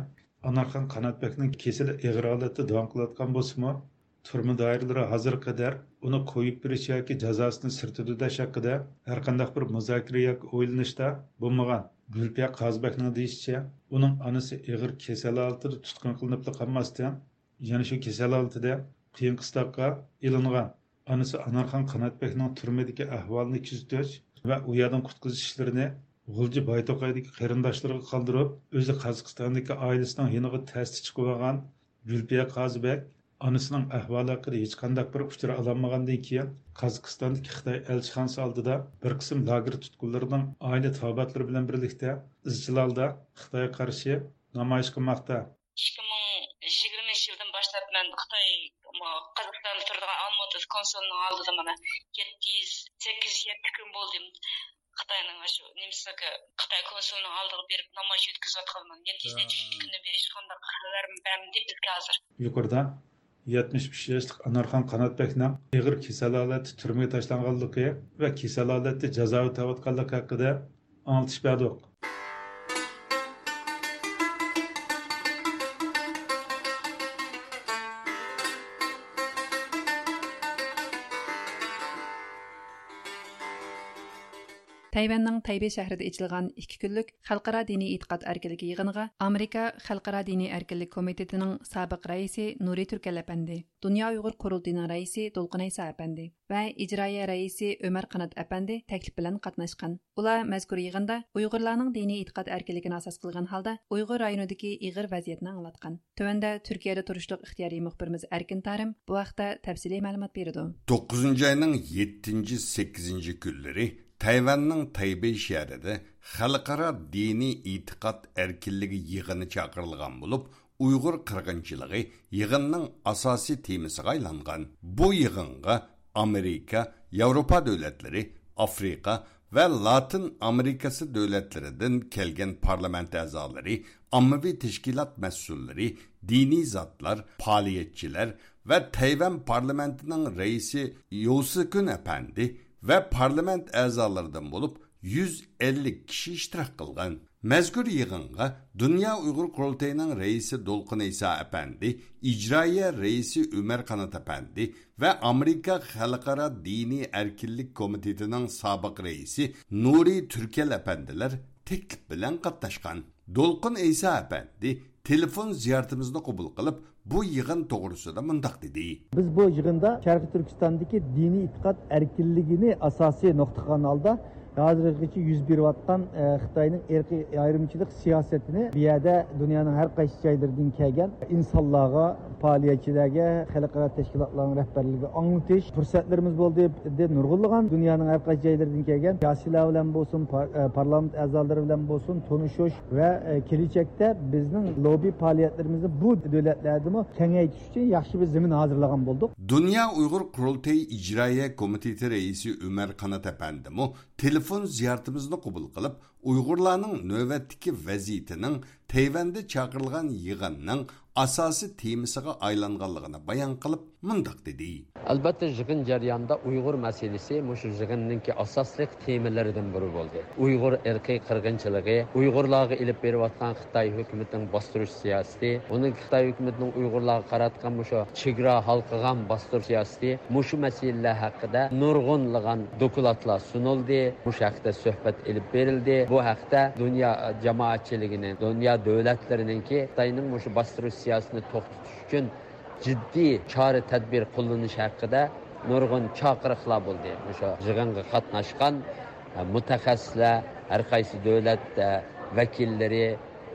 ئانارخان قاناتبەكنىڭ كېسىلى ئېغىر ھالەتتە داۋام قىلىۋاتقان بولسىمۇ، تۈرمە دائىرىلىرى ھازىرغا قەدەر ئۇنى قويۇپ بېرىش ياكى جازاسىنى سىرتىدا ئۆتەش ھەققىدە ھەرقانداق بىر مۇزاكىرە ياكى ئويلىنىشتا بولمىغان. گۈلپىيە قازىبەكنىڭ دېيىشىچە، ئۇنىڭ ئانىسى ئېغىر كېسەل ھالىتىدە تۇتقۇن قىلىنىپلا قالماستىن، يەنە شۇ كېسەل ھالىتىدە قىيىن قىستاققا ئېلىنغان. ئانىسى ئانارخان قاناتبەكنىڭ تۈرمىدىكى ئەھۋالىنى كۆزىتىش ۋە ئۇ يەردىن قۇتقۇزۇش ئىشلىرىنى غۇلجا بايتوقايدىكى قېرىنداشلىرىغا قالدۇرۇپ، ئۆزى قازاقىستاندىكى ئائىلىسىنىڭ يېنىغا تەستە چىقىۋالغان گۈلپىيە قازىبەك ئانىسىنىڭ ئەھۋالى ھەققىدە ھېچقانداق بىر ئۇچۇر ئالالمىغاندىن كېيىن، قازاقىستاندىكى خىتاي ئەلچىخانىسى ئالدىدا بىر قىسىم لاگېر تۇتقۇنلىرىنىڭ ئائىلە تاۋابىئاتلىرى بىلەن بىرلىكتە ئىزچىل ھالدا خىتايغا قارشى نامايىش قىلماقتا. ئىككى مىڭ يىگىرمىنچى يىلدىن باشلاپ مەن خىتاي، قازاقىستاندا تۇرىدىغان ئالمۇتىدا كونسۇلنىڭ ئالدىدا مانا يەتتە يۈز، سەككىز يۈز يەتتە كۈن بولدى. خىتاينىڭ شۇ نېمىسىگە، خىتاي كونسۇلىنىڭ ئالدىغا بېرىپ نامايىش ئۆتكۈزۈۋاتقىلىمەن. يەتتە يۈز نەچچە كۈندىن بېرى ھېچقانداق خەۋەر بەرمىدى بىزگە ھازىر. يۇقىرىدا يەتمىش ئۈچ ياشلىق ئانارخان قاناتبەكنىڭ ئېغىر كېسەل ھالەتتە تۈرمىگە تاشلانغانلىقى ۋە كېسەل ھالەتتە جازا ئۆتەۋاتقانلىقى ھەققىدە ئاڭلىتىش بەردۇق. تەيۋەننىڭ تەيبېي شەھىرىدە ئېچىلغان ئىككى كۈنلۈك خەلقئارا دىنىي ئېتىقاد ئەركىنلىكى يىغىنىغا ئامېرىكا خەلقئارا دىنىي ئەركىنلىك كومىتېتىنىڭ سابىق رەئىسى نۇرى تۈركەل ئەپەندى، دۇنيا ئۇيغۇر قۇرۇلتىيىنىڭ رەئىسى دولقۇن ئەيسا ئەپەندى ۋە ئىجرائىيە رەئىسى ئۆمەر قانات ئەپەندى تەكلىپ بىلەن قاتناشقان. ئۇلار مەزكۇر يىغىندا ئۇيغۇرلارنىڭ دىنىي ئېتىقاد ئەركىنلىكىنى ئاساس قىلغان ھالدا ئۇيغۇر رايونىدىكى ئېغىر ۋەزىيەتنى ئاڭلاتقان. تۆۋەندە تۈركىيەدە تۇرۇشلۇق ئىختىيارىي مۇخبىرىمىز ئەركىن تارىم بۇ ھەقتە تەپسىلىي مەلۇمات بېرىدۇ. توققۇزىنچى ئاينىڭ يەتتىنچى، سەككىزىنچى كۈنلىرى تەيۋەننىڭ تەيبېي شەھىرىدە خەلقئارا دىنىي ئېتىقاد ئەركىنلىكى يىغىنى چاقىرىلغان بولۇپ، ئۇيغۇر قىرغىنچىلىقى يىغىننىڭ ئاساسىي تېمىسىغا ئايلانغان. بۇ يىغىنغا ئامېرىكا، ياۋروپا دۆلەتلىرى، ئافرىقا ۋە لاتىن ئامېرىكىسى دۆلەتلىرىدىن كەلگەن پارلامېنت ئەزالىرى، ئاممىۋى تەشكىلات مەسئۇللىرى، دىنىي زاتلار، پائالىيەتچىلەر ۋە تەيۋەن پارلامېنتىنىڭ رەئىسى يوسىكۈن ئەپەندى ۋە پارلامېنت ئەزالىرىدىن بولۇپ يۈز ئەللىك كىشى ئىشتىراك قىلغان. مەزكۇر يىغىنغا دۇنيا ئۇيغۇر قۇرۇلتىيىنىڭ رەئىسى دولقۇن ئەيسا ئەپەندى، ئىجرائىيە رەئىسى ئۆمەر قانات ئەپەندى ۋە ئامېرىكا خەلقئارا دىنىي ئەركىنلىك كومىتېتىنىڭ سابىق رەئىسى نۇرى تۈركەل ئەپەندىلەر تەكلىپ بىلەن قاتناشقان. دولقۇن ئەيسا ئەپەندى تېلېفون زىيارىتىمىزنى قوبۇل قىلىپ، بۇ يىغىن توغرىسىدا مۇنداق دېدى. بىز بۇ يىغىندا شەرقىي تۈركىستاندىكى دىنىي ئېتىقاد ئەركىنلىكىنى ئاساسىي نۇقتا قىلغان ھالدا، ھازىرغىچە يۈز بېرىۋاتقان، ئە، خىتاينىڭ ئىرقىي ئايرىمچىلىق سىياسىتىنى بۇ يەردە دۇنيانىڭ ھەر قايسى جايلىرىدىن كەلگەن ئىنسانلارغا، پائالىيەتچىلەرگە، خەلقئارا تەشكىلاتلارنىڭ رەھبەرلىرىگە ئاڭلىتىش پۇرسەتلىرىمىز بولدى. بىردىن نۇرغۇنلىغان دۇنيانىڭ ھەر قايسى جايلىرىدىن كەلگەن سىياسىيلار بىلەن بولسۇن، پار-، ئە، پارلامېنت ئەزالىرى بىلەن بولسۇن تونۇشۇش ۋە، ئە، كېلىچەكتە بىزنىڭ لوببى پائالىيەتلىرىمىزنى بۇ دۆلەتلەردىمۇ كېڭەيتىش ئۈچۈن ياخشى بىر زېمىن ھازىرلىغان بولدۇق. دۇنيا ئۇيغۇر قۇرۇلتىيى ئىجرائىيە كومىتېتى رەئىسى ئۆمەر قانات ئەپەندىمۇ تېلېفون زىيارىتىمىزنى قوبۇل قىلىپ، ئۇيغۇرلارنىڭ نۆۋەتتىكى ۋەزىيىتىنىڭ تەيۋەندە چاقىرىلغان يىغىننىڭ ئاساسىي تېمىسىغا ئايلانغانلىقىنى بايان قىلىپ، مۇنداق دېدى. ئەلۋەتتە، يىغىن جەريانىدا ئۇيغۇر مەسىلىسى مۇشۇ يىغىننىڭكى ئاساسلىق تېمىلىرىدىن بىرى بولدى. ئۇيغۇر ئىرقىي قىرغىنچىلىقى، ئۇيغۇرلارغا ئېلىپ بېرىۋاتقان خىتاي ھۆكۈمىتىنىڭ باستۇرۇش سىياسىتى، ئۇنىڭ خىتاي ھۆكۈمىتىنىڭ ئۇيغۇرلارغا قاراتقان مۇشۇ چېگرا ھالقىغان باستۇرۇش سىياسىتى، مۇشۇ مەسىلىلەر ھەققىدە نۇرغۇنلىغان دوكلاتلار سۇنۇلدى. مۇشۇ ھەقتە سۆھبەت ئېلىپ بېرىلدى. بۇ ھەقتە دۇنيا جامائەتچىلىكىنىڭ، دۇنيا دۆلەتلىرىنىڭكى خىتاينىڭ مۇشۇ باستۇرۇش سىياسىتىنى توختىتىش ئۈچۈن جىددىي چارە-تەدبىر قوللىنىش ھەققىدە نۇرغۇن چاقىرىقلار بولدى. مۇشۇ يىغىنغا قاتناشقان، ئە، مۇتەخەسسىسلەر، ھەر قايسى دۆلەت، ئە، ۋەكىللىرى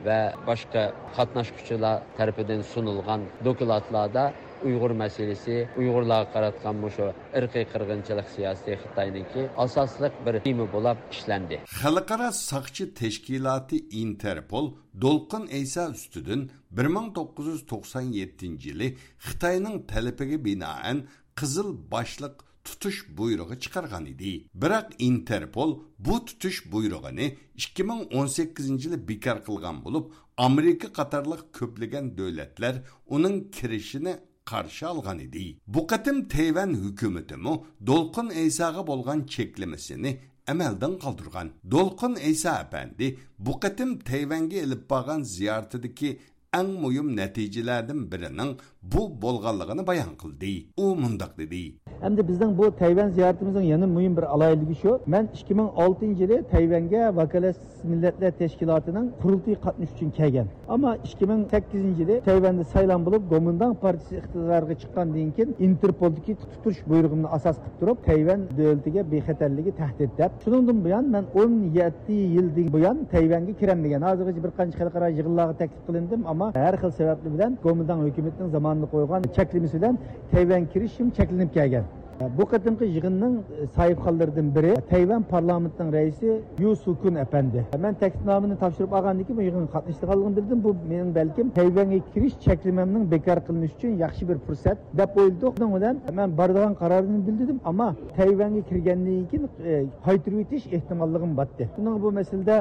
ۋە باشقا قاتناشقۇچىلار تەرىپىدىن سۇنۇلغان دوكلاتلاردا ئۇيغۇر مەسىلىسى، ئۇيغۇرلارغا قاراتقان مۇشۇ ئىرقىي قىرغىنچىلىق سىياسىتى خىتاينىڭكى ئاساسلىق بىر تېما بولۇپ ئىشلەندى. خەلقئارا ساقچى تەشكىلاتى ئىنتېرپول دولقۇن ئەيسا ئۈستىدىن بىر مىڭ توققۇز يۈز توقسان يەتتىنچى يىلى خىتاينىڭ تەلىپىگە بىنائەن قىزىل باشلىق تۇتۇش بۇيرۇقى چىقارغان ئىدى. بىراق ئىنتېرپول بۇ تۇتۇش بۇيرۇقىنى ئىككى مىڭ ئون سەككىزىنچى يىلى بىكار قىلغان بولۇپ، ئامېرىكا قاتارلىق كۆپلىگەن دۆلەتلەر ئۇنىڭ كىرىشىنى قارشى ئالغان ئىدى. بۇ قېتىم تەيۋەن ھۆكۈمىتىمۇ دولقۇن ئەيساغا بولغان چەكلىمىسىنى ئەمەلدىن قالدۇرغان. دولقۇن ئەيسا ئەپەندى بۇ قېتىم تەيۋەنگە ئېلىپ بارغان زىيارىتىدىكى ئەڭ مۇھىم نەتىجىلەردىن بىرىنىڭ بۇ بولغانلىقىنى بايان قىلدى. ئۇ مۇنداق دېدى. ئەمدى بىزنىڭ بۇ تەيۋەن زىيارىتىمىزنىڭ يەنە مۇھىم بىر ئالاھىدىلىكى شۇ، مەن ئىككى مىڭ ئالتىنچى يىلى تەيۋەنگە ۋاكالەتسىز مىللەتلەر تەشكىلاتىنىڭ قۇرۇلتىيىغا قاتنىشىش ئۈچۈن كەلگەن. ئەمما ئىككى مىڭ سەككىزىنچى يىلى تەيۋەندە سايلام بولۇپ، گومىنداڭ پارتىيىسى ئىقتىدارغا چىققاندىن كېيىن، ئىنتېرپولدىكى تۇتۇش بۇيرۇغۇمنى ئاساس قىلىپ تۇرۇپ، تەيۋەن دۆلىتىگە بىخەتەرلىكى تەھدىت دەپ. شۇنىڭدىن بۇيان مەن ئون يەتتە يىلدىن بۇيان تەيۋەنگە كىرەلمىگەن. ھازىرغىچە بىر قانچە خەلقئارا يىغىنلارغا تەكلىپ قىلىندىم، ئەمما ھەر خىل سەۋەبلەر بىلەن گومىنداڭ ھۆكۈمىتىنىڭ زامانىدا قويغان چەكلىمىسى بىلەن تەيۋەنگە كىرىشىم چەكلىنىپ كەلگەن. بۇ قېتىمقى يىغىننىڭ ساھىبخانلىرىدىن بىرى تەيۋەن پارلامېنتىنىڭ رەئىسى يۇ سۇكۈن ئەپەندى. مەن تەكلىپنامىنى تاپشۇرۇپ ئالغاندىن كېيىن بۇ يىغىنغا قاتنىشىدىغانلىقىمنى بىلدىم. بۇ مېنىڭ بەلكىم تەيۋەنگە كىرىش چەكلىمەمنىڭ بېكار قىلىنىشى ئۈچۈن ياخشى بىر پۇرسەت دەپ ئويلىدۇق. شۇنىڭ بىلەن مەن بارىدىغان قارارنى بىلدۈردۈم، ئەمما تەيۋەنگە كىرگەندىن كېيىن، ئە، قايتۇرۇۋېتىش ئېھتىماللىقىمۇ بار. شۇنىڭغا بۇ مەسىلىدە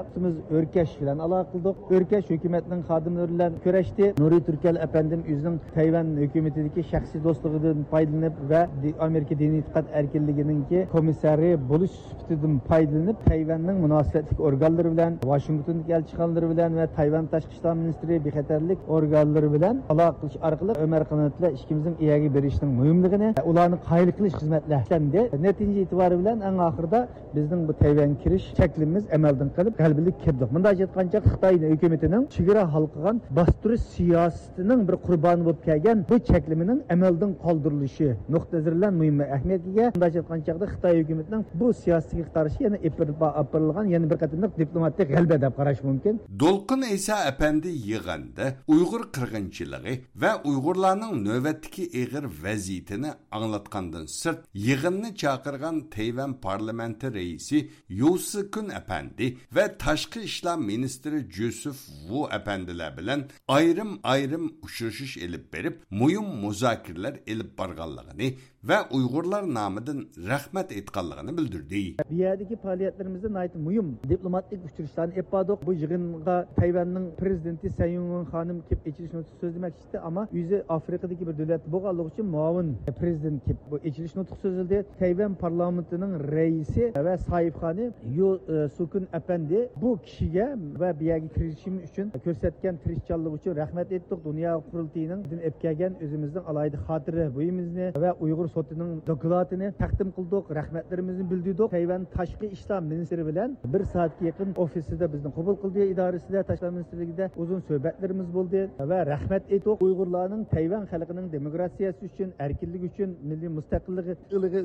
ئۆركەش بىلەن ئالاقە قىلدۇق. ئۆركەش ھۆكۈمەتنىڭ خادىملىرى بىلەن كۆرۈشتى. نۇرى تۈركەل ئەپەندىم ئۆزىنىڭ تەيۋەن ھۆكۈمىتىدىكى شەخسىي دوستلۇقىدىن پايدىلىنىپ ۋە دى-، ئامېرىكا دىنىي ئېتىقاد ئەركىنلىكىنىڭكى كومىسسارى بولۇش سۈپىتىدىن پايدىلىنىپ، تەيۋەننىڭ مۇناسىۋەتلىك ئورگانلىرى بىلەن، ۋاشىنگتوندىكى ئەلچىخانىلىرى بىلەن ۋە تەيۋەن تاشقى ئىشلار مىنىستىرى بىخەتەرلىك ئورگانلىرى بىلەن ئالاقە قىلىش ئارقىلىق ئۆمەر قانات بىلەن ئىككىمىزنىڭ ئىگە بېرىشنىڭ مۇھىملىقىنى، ئۇلارنى قايىل قىلىش خىزمەتلەر ئىشلەندى. نەتىجە ئېتىبارى بىلەن ئەڭ ئاخىرىدا بىزنىڭ بۇ تەيۋەنگە كىرىش چەكلىمىمىز ئەمەلدىن قېلىپ، غەلىبىلىك كىردۇق. مۇنداقچە ئېيتقان چاغدا، خىتاي ھۆكۈمىتىنىڭ چېگرا ھالقىغان باستۇرۇش سىياسىتىنىڭ بىر قۇربانى بولۇپ كەلگەن بۇ چەكلىمىنىڭ ئەمەلدىن قالدۇرۇلۇشى نۇقتىئىنەزىرىدىن مۇھىم ئەھمىيەتكە ئىگە. مۇنداقچە ئېيتقان چاغدا، خىتاي ھۆكۈمىتىنىڭ بۇ سىياسىتىگە قارشى يەنە ئېلىپ بېرىلىپ، ئېلىپ بېرىلغان يەنە بىر قېتىملىق دىپلوماتىك غەلىبە دەپ قاراش مۇمكىن. دولقۇن ئەيسا ئەپەندى يىغىندا ئۇيغۇر قىرغىنچىلىقى ۋە ئۇيغۇرلارنىڭ نۆۋەتتىكى ئېغىر ۋەزىيىتىنى ئاڭلاتقاندىن سىرت، يىغىننى چاقىرغان تەيۋەن پارلامېنتى رەئىسى يۇ سىكۈن ئەپەندى ۋە تاشقى ئىشلار مىنىستىرى جوزېف ۋۇ ئەپەندىلەر بىلەن ئايرىم-ئايرىم ئۇچرىشىش ئېلىپ بېرىپ، مۇھىم مۇزاكىرىلەر ئېلىپ بارغانلىقىنى ۋە ئۇيغۇرلار نامىدىن رەھمەت ئېيتقانلىقىنى بىلدۈردى. بۇ يەردىكى پائالىيەتلىرىمىزدە ناھايىتى مۇھىم دىپلوماتىك ئۇچرىشىشلارنى ئېلىپ باردۇق. بۇ يىغىنغا تەيۋەننىڭ پىرېزىدېنتى سەي ئىڭۋېن خانىم كېلىپ ئېچىلىش نۇتقى سۆزلىمەكچى ئىدى، ئەمما ئۆزى ئافرىقىدىكى بىر دۆلەتتە بولغانلىقى ئۈچۈن مۇئاۋىن پىرېزىدېنت كېلىپ بۇ ئېچىلىش نۇتقى سۆزلىدى. تەيۋەن پارلامېنتىنىڭ رەئىسى ۋە ساھىبخانى يۇ، ئە، سۇكۈن ئەپەندى بۇ كىشىگە ۋە بۇ يەرگە كىرىشىم ئۈچۈن كۆرسەتكەن تىرىشچانلىقى ئۈچۈن رەھمەت ئېيتتۇق. دۇنيا قۇرۇلتىيىنىڭ ئېلىپ كەلگەن ئۆزىمىزنىڭ ئالاھىدە خاتىرە بۇيۇمىمىزنى ۋە ئۇيغۇر سوتىنىڭ دوكلاتىنى تەقدىم قىلدۇق، رەھمەتلىرىمىزنى بىلدۈردۇق. تەيۋەن تاشقى ئىشلار مىنىستىرى بىلەن بىر سائەتكە يېقىن ئوفىسىدا بىزنى قوبۇل قىلدى، ئىدارىسىدە، تاشقى ئىشلار مىنىستىرلىكىدە ئۇزۇن سۆھبەتلىرىمىز بولدى ۋە رەھمەت ئېيتتۇق. ئۇيغۇرلارنىڭ تەيۋەن خەلقىنىڭ دېموكراتىيەسى ئۈچۈن، ئەركىنلىكى ئۈچۈن، مىللىي مۇستەقىللىقى،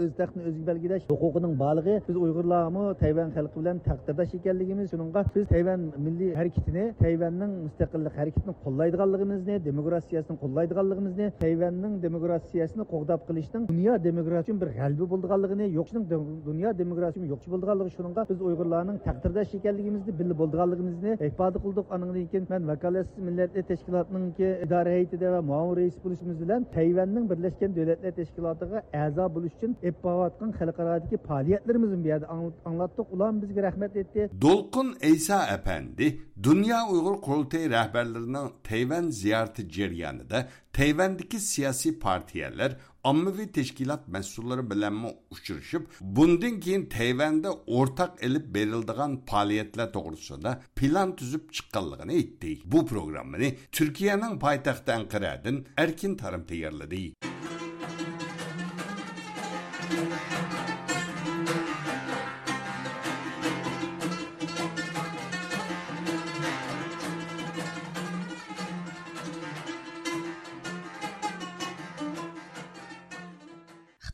ئۆز تەختىنى ئۆزى بەلگىلەش ھوقۇقىنىڭ بارلىقى، بىز ئۇيغۇرلارمۇ تەيۋەن خەلقى بىلەن تەقدىرداش ئىكەنلىكىمىز، شۇنىڭغا بىز تەيۋەن مىللىي ھەرىكىتىنى، تەيۋەننىڭ مۇستەقىللىق ھەرىكىتىنى قوللايدىغانلىقىمىزنى، دېموكراتىيەسىنى قوللايدىغانلىقىمىزنى، تەيۋەننىڭ دېموكراتىيەسىنى قوغداپ قېلىشنىڭ دۇنيا دېموكراتىيە ئۈچۈن بىر غەلىبە بولىدىغانلىقىنى، يوقىتىشنىڭ دۇنيا دېموكراتىيە ئۈچۈن يوقىتىش بولىدىغانلىقى، شۇنىڭغا بىز ئۇيغۇرلارنىڭ تەقدىرداش ئىكەنلىكىمىزنى بىللە بولىدىغانلىقىمىزنى ئىپادە قىلدۇق. ئانىڭدىن كېيىن مەن ۋاكالەتسىز مىللەتلەر تەشكىلاتىنىڭكى ئىدارە ھەيئىتىدە ۋە مۇئاۋىن رەئىس بولۇشىمىز بىلەن تەيۋەننىڭ بىرلەشكەن دۆلەتلەر تەشكىلاتىغا ئەزا بولۇش ئۈچۈن ئېلىپ بارىۋاتقان خەلقئارادىكى پائالىيەتلىرىمىزنى بۇ يەردە ئاڭ-، ئاڭلاتتۇق. ئۇلارمۇ بىزگە رەھمەت ئېيتتى. دولقۇن ئەيسا ئەپەندى دۇنيا ئۇيغۇر قۇرۇلتىيى رەھبەرلىرىنىڭ تەيۋەن زىيارىتى جەريانىدا تەيۋەندىكى سىياسىي پارتىيەلەر، ئاممىۋى تەشكىلات مەسئۇللىرى بىلەنمۇ ئۇچرىشىپ، بۇندىن كېيىن تەيۋەندە ئورتاق ئېلىپ بېرىلىدىغان پائالىيەتلەر توغرىسىدا پىلان تۈزۈپ چىققانلىقىنى ئېيتتى. بۇ پروگراممىنى تۈركىيەنىڭ پايتەختى ئەنقەرەدىن ئەركىن تارىم تەييارلىدى.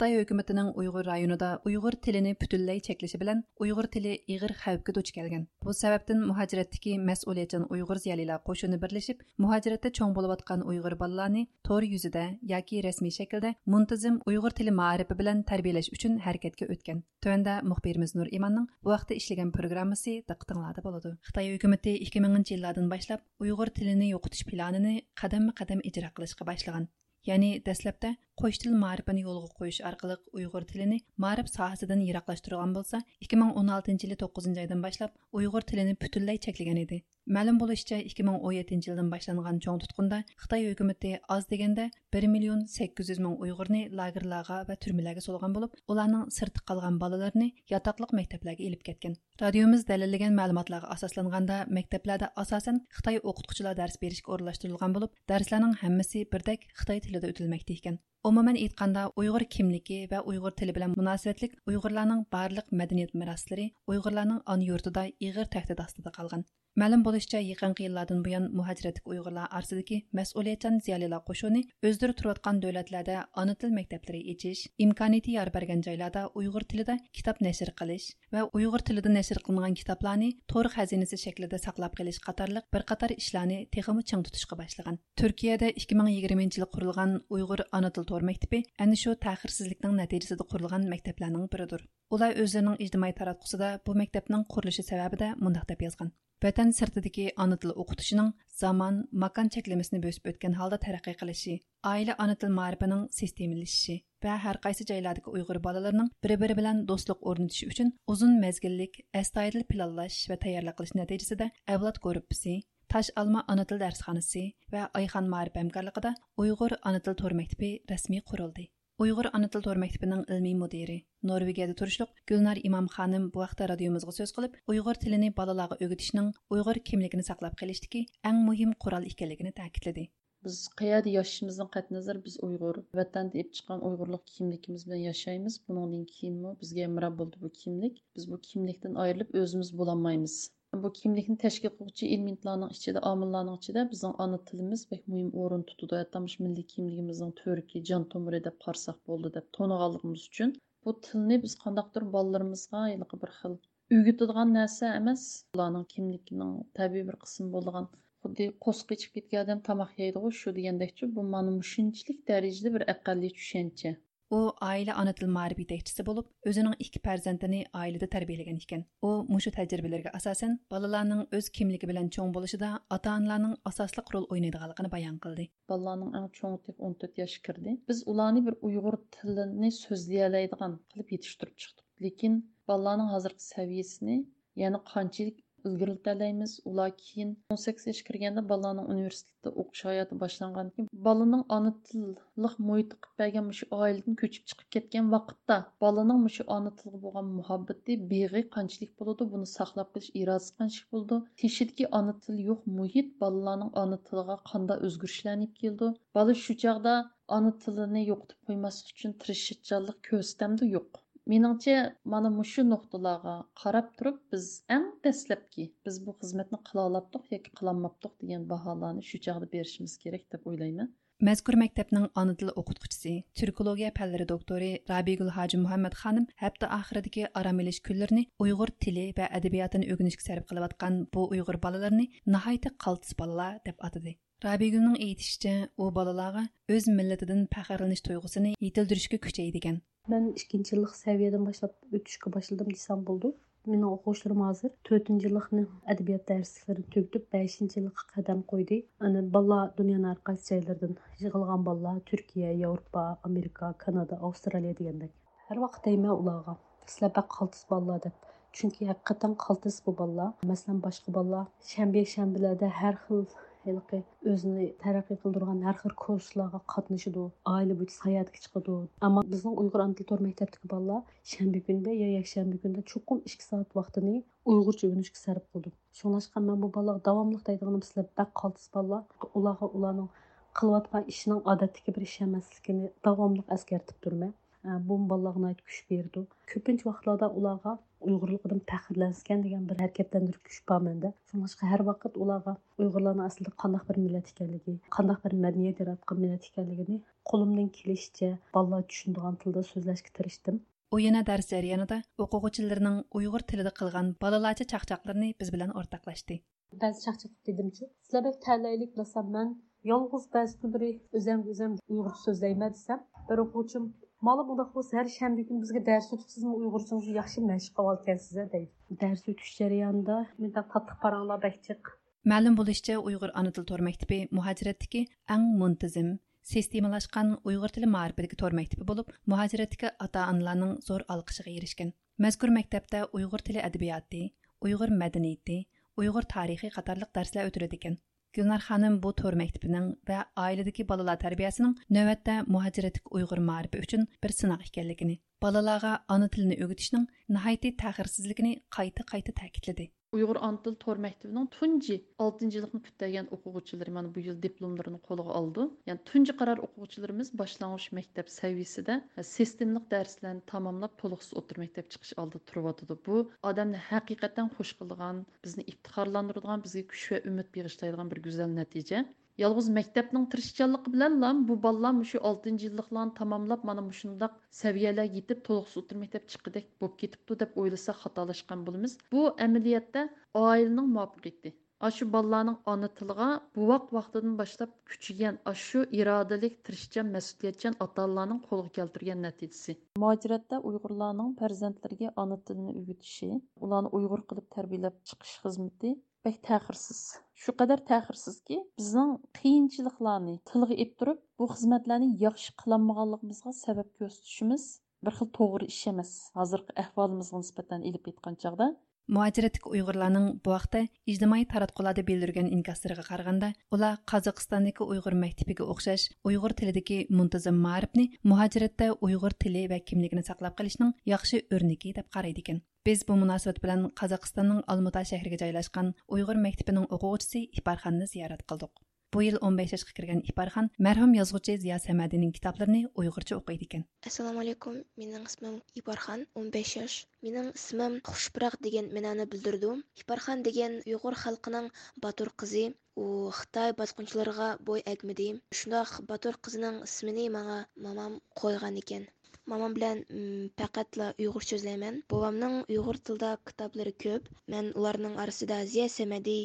خىتاي ھۆكۈمىتىنىڭ ئۇيغۇر رايونىدا ئۇيغۇر تىلىنى پۈتۈنلەي چەكلىشى بىلەن ئۇيغۇر تىلى ئېغىر خەۋپكە دۇچ كەلگەن. بۇ سەۋەبتىن مۇھاجىرەتتىكى مەسئۇلىيەتچان ئۇيغۇر زىيالىيلار قوشۇنى بىرلىشىپ، مۇھاجىرەتتە چوڭ بولۇۋاتقان ئۇيغۇر بالىلارنى تور يۈزىدە ياكى رەسمىي شەكىلدە مۇنتىزىم ئۇيغۇر تىلى مائارىپى بىلەن تەربىيەلەش ئۈچۈن ھەرىكەتكە ئۆتكەن. تۆۋەندە مۇخبىرىمىز نۇر ئىماننىڭ بۇ ھەقتە ئىشلىگەن پروگراممىسى دىققىتىڭلاردا بولىدۇ. خىتاي ھۆكۈمىتى ئىككى مىڭىنچى يىللاردىن باشلاپ ئۇيغۇر تىلىنى يوقىتىش پىلانىنى قەدەممۇ قەدەم ئىجرا قىلىشقا باشلىغان. يەنى دەسلەپتە قوش تىل مائارىپىنى يولغا قويۇش ئارقىلىق ئۇيغۇر تىلىنى مائارىپ ساھەسىدىن يىراقلاشتۇرغان بولسا، ئىككى مىڭ ئون ئالتىنچى يىلى توققۇزىنچى ئايدىن باشلاپ ئۇيغۇر تىلىنى پۈتۈنلەي چەكلىگەن ئىدى. مەلۇم بولۇشىچە، ئىككى مىڭ ئون يەتتىنچى يىلدىن باشلانغان چوڭ تۇتقۇندا خىتاي ھۆكۈمىتى ئاز دېگەندە بىر مىليون سەككىز يۈز مىڭ ئۇيغۇرنى لاگېرلارغا ۋە تۈرمىلەرگە سولىغان بولۇپ، ئۇلارنىڭ سىرتتا قالغان بالىلىرىنى ياتاقلىق مەكتەپلەرگە ئېلىپ كەتكەن. رادىيومىز دەلىللىگەن مەلۇماتلارغا ئاساسلانغاندا، مەكتەپلەردە ئاساسەن خىتاي ئوقۇتقۇچىلار دەرس بېرىشكە ئورۇنلاشتۇرۇلغان بولۇپ، دەرسلەرنىڭ ھەممىسى بىردەك خىتاي تىلىدا ئۆتۈلمەكتە ئىكەن. ئومۇمەن ئېيتقاندا، ئۇيغۇر كىملىكى ۋە ئۇيغۇر تىلى بىلەن مۇناسىۋەتلىك ئۇيغۇرلارنىڭ بارلىق مەدەنىيەت مىراسلىرى ئۇيغۇرلارنىڭ ئانا يۇرتىدا ئېغىر تەھدىت ئاستىدا قالغان. مەلۇم بولۇشىچە، يېقىنقى يىللاردىن بۇيان مۇھاجىرەتتىكى ئۇيغۇرلار ئارىسىدىكى مەسئۇلىيەتچان زىيالىيلار قوشۇنى ئۆزلىرى تۇرۇۋاتقان دۆلەتلەردە ئانا تىل مەكتەپلىرى ئېچىش، ئىمكانىيىتى يار بەرگەن جايلاردا ئۇيغۇر تىلىدا كىتاب نەشر قىلىش ۋە ئۇيغۇر تىلىدا نەشر قىلىنغان كىتابلارنى تور خەزىنىسى شەكلىدە ساقلاپ قېلىش قاتارلىق بىر قاتار ئىشلارنى تېخىمۇ چىڭ تۇتۇشقا باشلىغان. تۈركىيەدە ئىككى مىڭ يىگىرمىنچى يىلى قۇرۇلغان ئۇيغۇر ئانا تىل تور مەكتىپى ئەنە شۇ تەخىرسىزلىكنىڭ نەتىجىسىدە قۇرۇلغان مەكتەپلەرنىڭ بىرىدۇر. ئۇلار ئۆزلىرىنىڭ ئىجتىمائىي تاراتقۇسىدا بۇ مەكتەپنىڭ قۇرۇلۇشى سەۋەبىدە مۇنداق دەپ يازغان: ۋەتەن سىرتىدىكى ئانا تىل ئوقۇتۇشىنىڭ زامان، ماكان چەكلىمىسىنى بۆسۈپ ئۆتكەن ھالدا تەرەققىي قىلىشى، ئائىلە ئانا تىل مائارىپىنىڭ سىستېمىلىشىشى ۋە ھەر قايسى جايلاردىكى ئۇيغۇر بالىلىرىنىڭ بىر-بىرى بىلەن دوستلۇق ئورنىتىشى ئۈچۈن ئۇزۇن مەزگىللىك، ئەستايىدىل پىلانلاش ۋە تەييارلىق قىلىش نەتىجىسىدە ئەۋلاد گۇرۇپپىسى، تاش ئالما ئانا تىل دەرسخانىسى ۋە ئايخان مائارىپ ھەمكارلىقىدا ئۇيغۇر ئانا تىل تور مەكتىپى رەسمىي قۇرۇلدى. ئۇيغۇر ئانا تىل تور مەكتىپىنىڭ ئىلمىي مۇدىرى، نورۋېگىيەدە تۇرۇشلۇق گۈلنار ئىمام خانىم بۇ ھەقتە رادىيومىزغا سۆز قىلىپ، ئۇيغۇر تىلىنى بالىلارغا ئۆگىتىشنىڭ ئۇيغۇر كىملىكىنى ساقلاپ قېلىشتىكى ئەڭ مۇھىم قورال ئىكەنلىكىنى تەكىتلىدى. بىز قەيەردە ياشىشىمىزدىن قەتئىينەزەر، بىز ئۇيغۇر. ۋەتەندە ئېلىپ چىققان ئۇيغۇرلۇق كىملىكىمىز بىلەن ياشايمىز. بۇنىڭدىن كېيىنمۇ بىزگە ھەمراھ بولىدۇ بۇ كىملىك. بىز بۇ كىملىكتىن ئايرىلىپ ئۆزىمىز بولالمايمىز. بۇ كىملىكنى تەشكىل قىلغۇچى ئېلېمېنتلارنىڭ ئىچىدە، ئامىللارنىڭ ئىچىدە بىزنىڭ ئانا تىلىمىز بەك مۇھىم ئورۇن تۇتىدۇ. ھەتتا مۇشۇ مىللىي كىملىكىمىزنىڭ تۈۋرۈكى، جان تومۇرى دەپ قارىساق بولىدۇ دەپ تونۇغانلىقىمىز ئۈچۈن، بۇ تىلنى بىز قانداقتۇر بالىلىرىمىزغا ھېلىقى بىر خىل ئۆگىتىدىغان نەرسە ئەمەس، ئۇلارنىڭ كىملىكىنىڭ تەبىئىي بىر قىسمى بولىدىغان، خۇددى قورسىقى ئېچىپ كەتكەن ئادەم تاماق يەيدىغۇ، شۇ دېگەندەكچۇ، بۇ مانا مۇشۇنچىلىك دەرىجىدە بىر ئەقەللىي چۈشەنچە. ئۇ ئائىلە ئانا تىل مائارىپ يېتەكچىسى بولۇپ، ئۆزىنىڭ ئىككى پەرزەنتىنى ئائىلىدە تەربىيەلىگەن ئىكەن. ئۇ مۇشۇ تەجرىبىلىرىگە ئاساسەن، بالىلارنىڭ ئۆز كىملىكى بىلەن چوڭ بولۇشىدا ئاتا-ئانىلارنىڭ ئاساسلىق رول ئوينايدىغانلىقىنى بايان قىلدى. بالىلارنىڭ ئەڭ چوڭى تېخى ئون تۆت ياشقا كىردى. بىز ئۇلارنى بىر ئۇيغۇر تىلىنى سۆزلىيەلەيدىغان قىلىپ يېتىشتۈرۈپ چىقتۇق. لېكىن بالىلارنىڭ ھازىرقى سەۋىيەسىنى، يەنى قانچىلىك ئىلگىرىلىتەلەيمىز. ئۇلار كېيىن ئون سەككىز ياشقا كىرگەندە بالىلارنىڭ ئۇنىۋېرسىتېتتا ئوقۇش ھاياتى باشلانغاندىن كېيىن، بالىنىڭ ئانا تىللىق مۇھىت قىلىپ بەرگەن مۇشۇ ئائىلىدىن كۆچۈپ چىقىپ كەتكەن ۋاقىتتا، بالىنىڭ مۇشۇ ئانا تىلغا بولغان مۇھەببىتى، بېغى قانچىلىك بولىدۇ، بۇنى ساقلاپ قېلىش ئىرادىسى قانچىلىك بولىدۇ، تېشىدىكى ئانا تىلى يوق مۇھىت بالىلارنىڭ ئانا تىلىغا قانداق ئۆزگىرىشلەرنى ئېلىپ كېلىدۇ. بالا شۇ چاغدا ئانا تىلىنى يوقىتىپ قويماسلىق ئۈچۈن تىرىشچانلىق كۆرسىتەمدۇ؟ يوق. مېنىڭچە، مانا مۇشۇ نۇقتىلارغا قاراپ تۇرۇپ، بىز ئەڭ دەسلەپكى، بىز بۇ خىزمەتنى قىلالاپتۇق ياكى قىلالماپتۇق دېگەن باھالارنى شۇ چاغدا بېرىشىمىز كېرەك دەپ ئويلايمەن. مەزكۇر مەكتەپنىڭ ئانا تىل ئوقۇتقۇچىسى، تۈركولوگىيە پەنلىرى دوكتورى رابىيگۈل ھاجى مۇھەممەد خانىم ھەپتە ئاخىرىدىكى ئارام ئېلىش كۈنلىرىنى ئۇيغۇر تىلى ۋە ئەدەبىياتىنى ئۆگىنىشكە سەرپ قىلىۋاتقان بۇ ئۇيغۇر بالىلىرىنى ناھايىتى قالتىس بالىلار دەپ ئاتىدى. رابىيگۈلنىڭ ئېيتىشىچە، ئۇ بالىلارغا ئۆز مىللىتىدىن پەخىرلىنىش تۇيغۇسىنى يېتىلدۈرۈشكە كۈچەيدىكەن. مەن ئىككىنچى يىللىق سەۋىيەدىن باشلاپ ئۆتۈشكە باشلىدىم دېسەم بولىدۇ. مېنىڭ ئوقۇغۇچىلىرىم ھازىر تۆتىنچى يىللىقنى ئەدەبىيات دەرسلىكلىرىنى تۈگىتىپ، بەشىنچى يىللىققا قەدەم قويدى. ئەنە بالىلار دۇنيانىڭ ھەر قايسى جايلىرىدىن يىغىلغان بالىلار، تۈركىيە، ياۋروپا، ئامېرىكا، كانادا، ئاۋسترالىيە دېگەندەك. ھەر ۋاقىت دەيمەن ئۇلارغا، سىلەر بەك قالتىس بالىلار دەپ. چۈنكى ھەقىقەتەن قالتىس بۇ بالىلار. مەسىلەن، باشقا بالىلار شەنبە، يەكشەنبىلەردە ھەر خىل ھېلىقى ئۆزىنى تەرەققىي قىلدۇرغان ھەر خىل كۇرسلارغا قاتنىشىدۇ، ئائىلە بويىچە ساياھەتكە چىقىدۇ. ئەمما بىزنىڭ ئۇيغۇر ئانا تىل تور مەكتەپتىكى بالىلار شەنبە كۈنىدە يا يەكشەنبە كۈنىدە چوقۇم ئىككى سائەت ۋاقتىنى ئۇيغۇرچە ئۆگىنىشكە سەرپ قىلىدۇ. شۇڭلاشقا مەن بۇ بالىلارغا داۋاملىق دەيدىغىنىم، سىلەر بەك قالتىس بالىلار. ئۇلارغا ئۇلارنىڭ قىلىۋاتقان ئىشىنىڭ ئادەتتىكى بىر ئىش ئەمەسلىكىنى داۋاملىق ئەسكەرتىپ تۇرىمەن. ئە، بۇمۇ بالىلارغا ناھايىتى كۈچ بېرىدۇ. كۆپىنچە ۋاقىتلاردا ئۇلارغا ئۇيغۇرلۇقىدىن پەخىرلەنسىكەن دېگەن بىر ھەرىكەتلەندۈرۈش كۈچ بار مەندە. شۇڭلاشقا ھەر ۋاقىت ئۇلارغا ئۇيغۇرلارنىڭ ئەسلىدە قانداق بىر مىللەت ئىكەنلىكى، قانداق بىر مەدەنىيەت ياراتقان مىللەت ئىكەنلىكىنى قولۇمدىن كېلىشىچە بالىلار چۈشىنىدىغان تىلدا سۆزلەشكە تىرىشتىم. ئۇ يەنە دەرس جەريانىدا ئوقۇغۇچىلىرىنىڭ ئۇيغۇر تىلىدا قىلغان بالىلارچە چاقچاقلىرىنى بىز بىلەن ئورتاقلاشتى. بەزى چاقچاق دېدىمچۇ، سىلەر بەك تەلەيلىك بىلەسەن، مەن يالغۇز بەزى كۈنلىرى ئۆزەمگە ئۆزەم ئۇيغۇرچە سۆزلەيمەن دېسەم، بىر ئوقۇغۇچىم، مالا مۇنداق بولسا ھەر شەنبە كۈنى بىزگە دەرس ئۆتۈپ، سىزمۇ ئۇيغۇرچىڭىزنى ياخشى مەشىق قىلىۋالىدىكەنسىز دەيدۇ. دەرس ئۆتۈش جەريانىدا مۇنداق تاتلىق پاراڭلار بەك جىق. مەلۇم بولۇشىچە، ئۇيغۇر ئانا تىل تور مەكتىپى مۇھاجىرەتتىكى ئەڭ مۇنتىزىم، سىستېمىلاشقان ئۇيغۇر تىلى مائارىپىدىكى تور مەكتىپى بولۇپ، مۇھاجىرەتتىكى ئاتا-ئانىلارنىڭ زور ئالقىشىغا ئېرىشكەن. مەزكۇر مەكتەپتە ئۇيغۇر تىلى ئەدەبىياتى، ئۇيغۇر مەدەنىيىتى، ئۇيغۇر تارىخى قاتارلىق دەرسلەر ئۆتۈلىدىكەن. گۈلنار خانىم بۇ تور مەكتىپىنىڭ ۋە ئائىلىدىكى بالىلار تەربىيەسىنىڭ نۆۋەتتە مۇھاجىرەتتىكى ئۇيغۇر مائارىپى ئۈچۈن بىر سىناق ئىكەنلىكىنى، بالىلارغا ئانا تىلىنى ئۆگىتىشنىڭ ناھايىتى تەخىرسىزلىكىنى قايتا-قايتا تەكىتلىدى. ئۇيغۇر ئانا تىل تور مەكتىپىنىڭ تۇنجى ئالتىنچى يىللىقنى پۈتتۈرگەن ئوقۇغۇچىلىرى مانا بۇ يىل دىپلوملىرىنى قولىغا ئالىدۇ. يەنى تۇنجى قارار ئوقۇغۇچىلىرىمىز باشلانغۇچ مەكتەپ سەۋىيىسىدە سىستېمىلىق دەرسلەرنى تاماملاپ، تولۇقسىز ئوتتۇرا مەكتەپ چىقىش ئالدىدا تۇرۇۋاتىدۇ. بۇ ئادەمنى ھەقىقەتەن خوش قىلىدىغان، بىزنى ئىپتىخارلاندۇرىدىغان، بىزگە كۈچ ۋە ئۈمىد بېغىشلايدىغان بىر گۈزەل نەتىجە. يالغۇز مەكتەپنىڭ تىرىشچانلىقى بىلەنلا بۇ بالىلار مۇشۇ ئالتىنچى يىللىقلارنى تاماملاپ، مانا مۇشۇنداق سەۋىيەلەرگە يېتىپ، تولۇقسىز ئوتتۇرا مەكتەپ چىققۇدەك بولۇپ كېتىپتۇ دەپ ئويلىساق خاتالاشقان بولىمىز. بۇ ئەمەلىيەتتە ئائىلىنىڭ مۇۋەپپەقىيىتى. ئاشۇ بالىلارنىڭ ئانا تىلىغا بوۋاق ۋاقتىدىن باشلاپ كۈچىگەن، ئاشۇ ئىرادىلىك، تىرىشچان، مەسئۇلىيەتچان ئاتا-ئانىلارنىڭ قولغا كەلتۈرگەن نەتىجىسى. مۇھاجىرەتتە ئۇيغۇرلارنىڭ پەرزەنتلىرىگە ئانا تىلىنى ئۆگىتىشى، ئۇلارنى ئۇيغۇر قىلىپ تەربىيەلەپ چىقىش خىزمىتى بەك تەخىرسىز. شۇ قەدەر تەخىرسىزكى، بىزنىڭ قىيىنچىلىقلارنى تىلغا ئېلىپ تۇرۇپ، بۇ خىزمەتلەرنى ياخشى قىلالمىغانلىقىمىزغا سەۋەب كۆرسىتىشىمىز بىر خىل توغرا ئىش ئەمەس، ھازىرقى ئەھۋالىمىزغا نىسبەتەن ئېلىپ ئېيتقان چاغدا. مۇھاجىرەتتىكى ئۇيغۇرلارنىڭ بۇ ھەقتە ئىجتىمائىي تاراتقۇلاردا بىلدۈرگەن ئىنكاسلىرىغا قارىغاندا، ئۇلار قازاقىستاندىكى ئۇيغۇر مەكتىپىگە ئوخشاش ئۇيغۇر تىلىدىكى مۇنتىزىم مائارىپنى مۇھاجىرەتتە ئۇيغۇر تىلى ۋە كىملىكىنى ساقلاپ قېلىشنىڭ ياخشى ئۆرنىكى دەپ قارايدىكەن. بىز بۇ مۇناسىۋەت بىلەن قازاقىستاننىڭ ئالمۇتا شەھىرىگە جايلاشقان ئۇيغۇر مەكتىپىنىڭ ئوقۇغۇچىسى ئىپارخاننى زىيارەت قىلدۇق. بۇ يىل ئون بەش ياشقا كىرگەن ئىپارخان مەرھۇم يازغۇچى زىيا سەمەدىنىڭ كىتابلىرىنى ئۇيغۇرچە ئوقۇيدىكەن. ئەسسالامۇئەلەيكۇم، مېنىڭ ئىسمىم ئىپارخان، ئون بەش ياش. مېنىڭ ئىسمىم خۇشپۇراق دېگەن مەنانى بىلدۈرىدۇ. ئىپارخان دېگەن ئۇيغۇر خەلقىنىڭ باتۇر قىزى. ئۇ خىتاي باسقۇنچىلىرىغا بوي ئەگمىدى. شۇنداق باتۇر قىزنىڭ ئىسمىنى ماڭا مامام قويغانىكەن. مامام بىلەن، م، پەقەتلا ئۇيغۇرچە سۆزلەيمەن. بوۋامنىڭ ئۇيغۇر تىلىدا كىتابلىرى كۆپ. مەن ئۇلارنىڭ ئارىسىدا زىيا سەمەدى،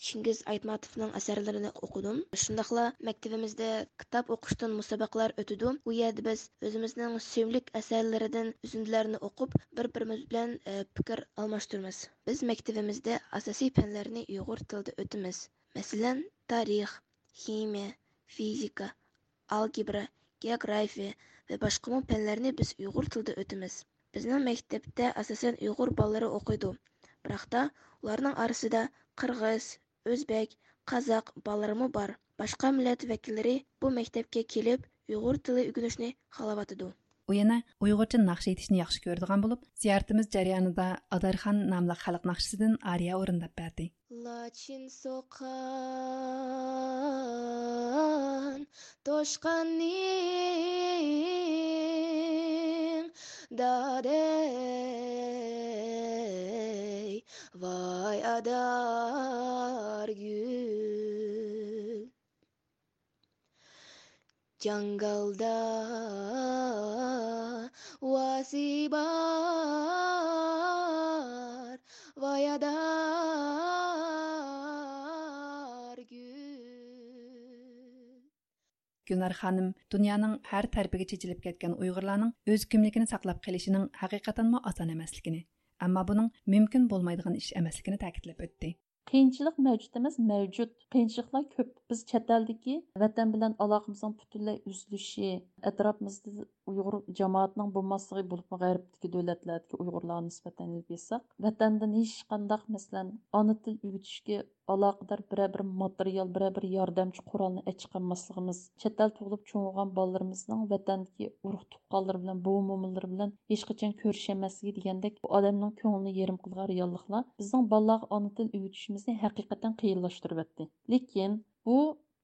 چىڭگىز ئايتماتوفنىڭ ئەسەرلىرىنى ئوقۇدۇم. شۇنداقلا مەكتىۋىمىزدە كىتاب ئوقۇشتىن مۇسابىقىلەر ئۆتىدۇ. ئۇ يەردە بىز ئۆزىمىزنىڭ سۆيۈملۈك ئەسەرلىرىدىن ئۈزۈندىلەرنى ئوقۇپ، بىر-بىرىمىز بىلەن، ئە، پىكىر ئالماشتۇرىمىز. بىز مەكتىۋىمىزدە ئاساسىي پەنلەرنى ئۇيغۇر تىلىدا ئۆتىمىز. مەسىلەن، تارىخ، خىمىيە، فىزىكا، ئالگېبرا، گېئوگرافىيە ۋە باشقىمۇ پەنلەرنى بىز ئۇيغۇر تىلىدا ئۆتىمىز. بىزنىڭ مەكتەپتە ئاساسەن ئۇيغۇر بالىلىرى ئوقۇيدۇ، بىراقتا ئۇلارنىڭ ئارىسىدا قىرغىز، ئۆزبەك، قازاق بالىلىرىمۇ بار. باشقا مىللەت ۋەكىللىرى بۇ مەكتەپكە كېلىپ، ئۇيغۇر تىلى ئۆگىنىشنى خالاۋاتىدۇ. ئۇ يەنە ئۇيغۇرچە ناخشا ئېيتىشنى ياخشى كۆرىدىغان بولۇپ، زىيارىتىمىز جەريانىدا ئادارخان ناملىق خەلق ناخشىسىدىن ئارىيە ئورۇنداپ بەردى. لاچىن سوققان توشقاننىڭ دادەي، ۋاي ئادارگۈل. جاڭگالدا ۋاسى بار، ۋاي ئادارگۈل. گۈلنار خانىم دۇنيانىڭ ھەر تەرىپىگە چېچىلىپ كەتكەن ئۇيغۇرلارنىڭ ئۆز كىملىكىنى ساقلاپ قېلىشىنىڭ ھەقىقەتەنمۇ ئاسان ئەمەسلىكىنى، ئەمما بۇنىڭ مۇمكىن بولمايدىغان ئىش ئەمەسلىكىنى تەكىتلەپ ئۆتتى. قىيىنچىلىق مەۋجۇت ئەمەس، مەۋجۇت. قىيىنچىلىقلار كۆپ. بىز چەت ئەلدىكى ۋەتەن بىلەن ئالاقىمىزنىڭ پۈتۈنلەي ئۈزۈلۈشى، ئەتراپىمىزدا ئۇيغۇر جامائىتىنىڭ بولماسلىقى، بولۇپمۇ غەربتىكى دۆلەتلەردىكى ئۇيغۇرلارغا نىسبەتەن ئېلىپ ئېيتساق، ۋەتەندىن ھېچقانداق، مەسىلەن، ئانا تىل ئۆگىتىشكە ئالاقىدار بىرەر بىر ماتېرىيال، بىرەر بىر ياردەمچى قورالنى ئەچىقالماسلىقىمىز، چەت ئەلدە تۇغۇلۇپ چوڭ بولغان بالىلىرىمىزنىڭ ۋەتەندىكى ئۇرۇق تۇغقانلىرى بىلەن، بوۋا مومىلىرى بىلەن ھېچقاچان كۆرۈشەلمەسلىكى دېگەندەك بۇ ئادەمنىڭ كۆڭلىنى يېرىم قىلىدىغان رېئاللىقلار بىزنىڭ بالىلارغا ئانا تىل ئۆگىتىشىمىزنى ھەقىقەتەن قىيىنلاشتۇرۇۋەتتى. لېكىن بۇ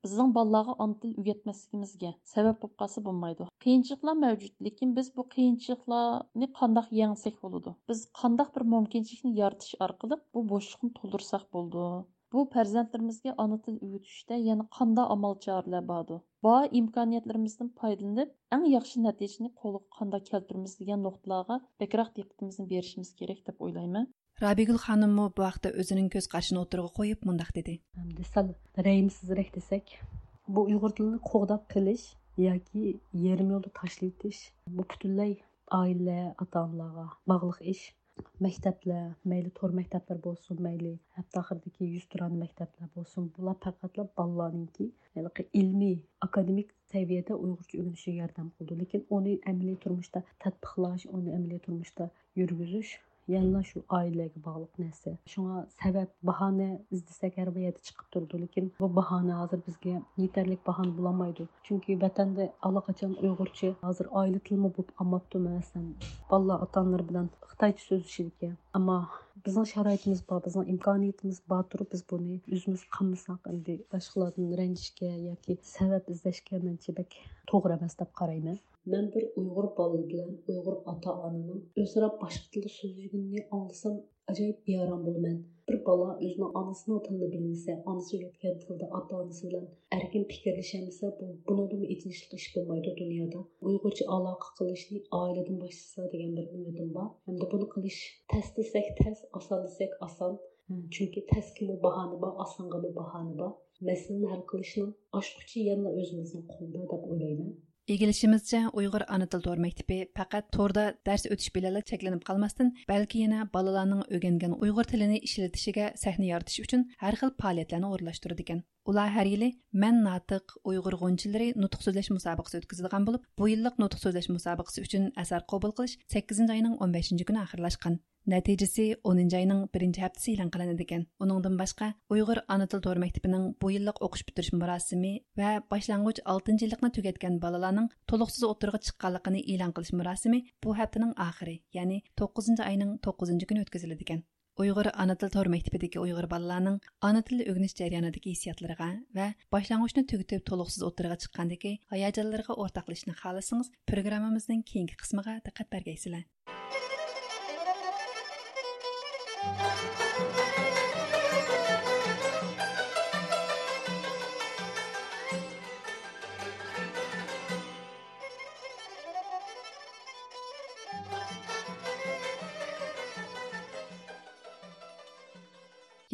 بىزنىڭ بالىلارغا ئانا تىل ئۆگەتمەسلىكىمىزگە سەۋەب بولۇپ قالسا بولمايدۇ. قىيىنچىلىقلار مەۋجۇت، لېكىن بىز بۇ قىيىنچىلىقلارنى قانداق يەڭسەك بولىدۇ؟ بىز قانداق بىر مۇمكىنچىلىكنى يارىتىش ئارقىلىق بۇ بوشلۇقنى تولدۇرساق بولىدۇ؟ بۇ پەرزەنتلىرىمىزگە ئانا تىل ئۆگىتىشتە يەنە قانداق ئامال چارىلەر باردۇ؟ بار ئىمكانىيەتلىرىمىزدىن پايدىلىنىپ، ئەڭ ياخشى نەتىجىنى قولغا قانداق كەلتۈرىمىز دېگەن نۇقتىلارغا بەكرەك دىققىتىمىزنى بېرىشىمىز كېرەك دەپ ئويلايمەن. رابىيگۈل خانىممۇ بۇ ھەقتە ئۆزىنىڭ كۆز قارىشىنى ئوتتۇرىغا قويۇپ مۇنداق دېدى. ئەمدى سەل رەھىمسىزرەك دېسەك، بۇ ئۇيغۇر تىلىنى قوغداپ قېلىش ياكى يېرىم يولدا تاشلىۋېتىش، بۇ پۈتۈنلەي ئائىلە، ئاتا-ئانىلارغا باغلىق ئىش. مەكتەپلەر، مەيلى تور مەكتەپلەر بولسۇن، مەيلى ھەپتە ئاخىرىدىكى يۈزتۇرانە مەكتەپلەر بولسۇن، بۇلار پەقەتلا بالىلارنىڭكى ھېلىقى ئىلمىي، ئاكادېمىك سەۋىيەدە ئۇيغۇرچە ئۆگىنىشىگە ياردەم قىلىدۇ. لېكىن ئۇنى ئەمەلىي تۇرمۇشتا تەتبىقلاش، ئۇنى ئەمەلىي تۇرمۇشتا يۈرگۈزۈش يەنىلا شۇ ئائىلىلەرگە باغلىق نەرسە. شۇڭا سەۋەب، باھانە ئىزدىسەك ھەر بىر يەردە چىقىپ تۇرىدۇ. لېكىن بۇ باھانە ھازىر بىزگە يېتەرلىك باھانە بولالمايدۇ. چۈنكى ۋەتەندە ئاللىقاچان ئۇيغۇرچە ھازىر ئائىلە تىلىمۇ بولۇپ قالماپتۇ. مەسىلەن، بالىلار ئاتا-ئانىلىرى بىلەن خىتايچە سۆزلىشىدىكەن. ئەمما بىزنىڭ شارائىتىمىز بار، بىزنىڭ ئىمكانىيىتىمىز بار تۇرۇپ، بىز بۇنى ئۆزىمىز قىلمىساق، ئەمدى باشقىلاردىن رەنجىشكە ياكى سەۋەب ئىزدەشكە مەنچە بەك توغرا ئەمەس دەپ قارايمەن. مەن بىر ئۇيغۇر بالا بىلەن ئۇيغۇر ئاتا-ئانىنىڭ ئۆزئارا باشقا تىلدا سۆزلىگىنىنى ئاڭلىسام، ئاجايىپ بىئارام بولىمەن. بىر بالا ئۆزىنىڭ ئانىسىنىڭ تىلىنى بىلمىسە، ئانىسى ئۆگەتكەن تىلدا ئاتا-ئانىسى بىلەن ئەركىن پىكىرلىشەلمىسە، بۇ، بۇنىڭدىنمۇ ئېچىنىشلىق ئىش بولمايدۇ دۇنيادا. ئۇيغۇرچە ئالاقە قىلىشنى ئائىلىدىن باشلىسا دېگەن بىر ئۈمىدىم بار. ھەمدە بۇنى قىلىش تەس دېسەك تەس، ئاسان دېسەك ئاسان. چۈنكى تەسكىمۇ باھانە بار، ئاسانغىمۇ باھانە بار. مەسىلىنى ھەل قىلىشنىڭ ئاچقۇچى يەنىلا ئۆزىمىزنىڭ قولىدا دەپ ئويلايمەن. ئىگىلىشىمىزچە، ئۇيغۇر ئانا تىل تور مەكتىپى پەقەت توردا دەرس ئۆتۈش بىلەنلا چەكلىنىپ قالماستىن، بەلكى يەنە بالىلارنىڭ ئۆگەنگەن ئۇيغۇر تىلىنى ئىشلىتىشىگە سەھنە يارىتىش ئۈچۈن ھەر خىل پائالىيەتلەرنى ئورۇنلاشتۇرىدىكەن. ئۇلار ھەر يىلى مەن ناتىق، ئۇيغۇر غۇنچىلىرى نۇتۇق سۆزلەش مۇسابىقىسى ئۆتكۈزىدىغان بولۇپ، بۇ يىللىق نۇتۇق سۆزلەش مۇسابىقىسى ئۈچۈن ئەسەر قوبۇل قىلىش سەككىزىنچى ئاينىڭ ئون بەشىنچى كۈنى ئاخىرلاشقان. نەتىجىسى ئونىنچى ئاينىڭ بىرىنچى ھەپتىسى ئېلان قىلىنىدىكەن. ئۇنىڭدىن باشقا، ئۇيغۇر ئانا تىل تور مەكتىپىنىڭ بۇ يىللىق ئوقۇش پۈتتۈرۈش مۇراسىمى ۋە باشلانغۇچ ئالتىنچى يىللىقنى تۈگەتكەن بالىلارنىڭ تولۇقسىز ئوتتۇرىغا چىققانلىقىنى ئېلان قىلىش مۇراسىمى بۇ ھەپتىنىڭ ئاخىرى، يەنى توققۇزىنچى ئاينىڭ توققۇزىنچى كۈنى ئۆتكۈزۈلىدىكەن. ئۇيغۇر ئانا تىل تور مەكتىپىدىكى ئۇيغۇر بالىلارنىڭ ئانا تىلنى ئۆگىنىش جەريانىدىكى ھېسسىياتلىرىغا ۋە باشلانغۇچنى تۈگىتىپ تولۇقسىز ئوتتۇرىغا چىققاندىكى ھاياجانلىرىغا ئورتاقلىشىشنى خالىسىڭىز، پروگراممىمىزنىڭ كېيىنكى قىسمىغا دىققەت بەرگەيسىلەر.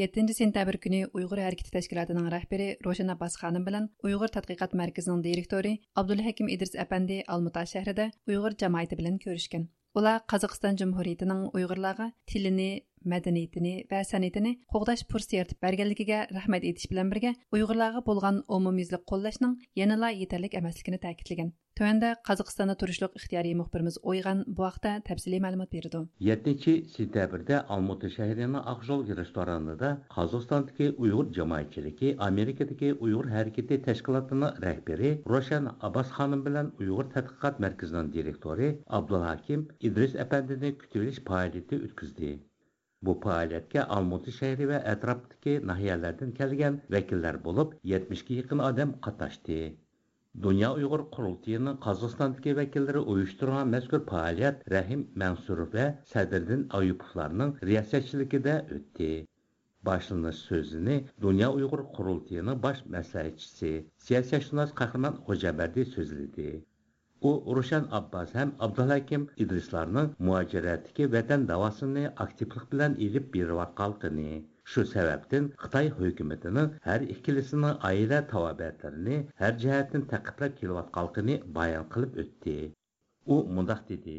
يەتتىنچى سېنتەبىر كۈنى ئۇيغۇر ھەرىكىتى تەشكىلاتىنىڭ رەھبىرى روشەن ئابباس خانىم بىلەن ئۇيغۇر تەتقىقات مەركىزىنىڭ دىرېكتورى ئابدۇلھەكىم ئىدرىس ئەپەندى ئالمۇتا شەھىرىدە ئۇيغۇر جامائىتى بىلەن كۆرۈشكەن. ئۇلار قازاقىستان جۇمھۇرىيىتىنىڭ ئۇيغۇرلارغا تىلىنى، مەدەنىيىتىنى ۋە سەنئىتىنى قوغداش پۇرسىتى يارىتىپ بەرگەنلىكىگە رەھمەت ئېيتىش بىلەن بىرگە، ئۇيغۇرلارغا بولغان ئومۇميۈزلۈك قوللاشنىڭ يەنىلا يېتەرلىك ئەمەسلىكىنى تەكىتلىگەن. تۆۋەندە قازاقىستاندا تۇرۇشلۇق ئىختىيارىي مۇخبىرىمىز ئويغان بۇ ھەقتە تەپسىلىي مەلۇمات بېرىدۇ. يەتتىنچى سېنتەبىردە ئالمۇتى شەھىرىنىڭ ئاقژول رېستورانىدا قازاقىستاندىكى ئۇيغۇر جامائەتچىلىكى ئامېرىكىدىكى ئۇيغۇر ھەرىكىتى تەشكىلاتىنىڭ رەھبىرى روشەن ئابباس خانىم بىلەن ئۇيغۇر تەتقىقات مەركىزىنىڭ دىرېكتورى ئابدۇلھاكىم ئىدرىس ئەپەندىنى كۈتۈۋېلىش پائالىيىتى ئۆتكۈزدى. بۇ پائالىيەتكە ئالمۇتى شەھىرى ۋە ئەتراپتىكى ناھىيەلەردىن كەلگەن ۋەكىللەر بولۇپ، يەتمىشكە يېقىن ئادەم قاتناشتى. دۇنيا ئۇيغۇر قۇرۇلتىيىنىڭ قازاقىستاندىكى ۋەكىللىرى ئۇيۇشتۇرغان مەزكۇر پائالىيەت رەھىم مەنسۇروف ۋە سەدرىدىن ئايۇپوۋلارنىڭ رىياسەتچىلىكىدە ئۆتتى. باشلىنىش سۆزىنى دۇنيا ئۇيغۇر قۇرۇلتىيىنىڭ باش مەسلىھەتچىسى، سىياسەتشۇناس قەھرىمان خوجامبەردى سۆزلىدى. ئۇ روشەن ئابباس ھەم ئابدۇلھەكىم ئىدرىسلارنىڭ مۇھاجىرەتتىكى ۋەتەن داۋاسىنى ئاكتىپلىق بىلەن ئېلىپ بېرىۋاتقانلىقىنى، شۇ سەۋەبتىن خىتاي ھۆكۈمىتىنىڭ ھەر ئىككىلىسىنىڭ ئائىلە تاۋابىئاتلىرىنى ھەر جەھەتتىن تەقىبلەپ كېلىۋاتقانلىقىنى بايان قىلىپ ئۆتتى. ئۇ مۇنداق دېدى.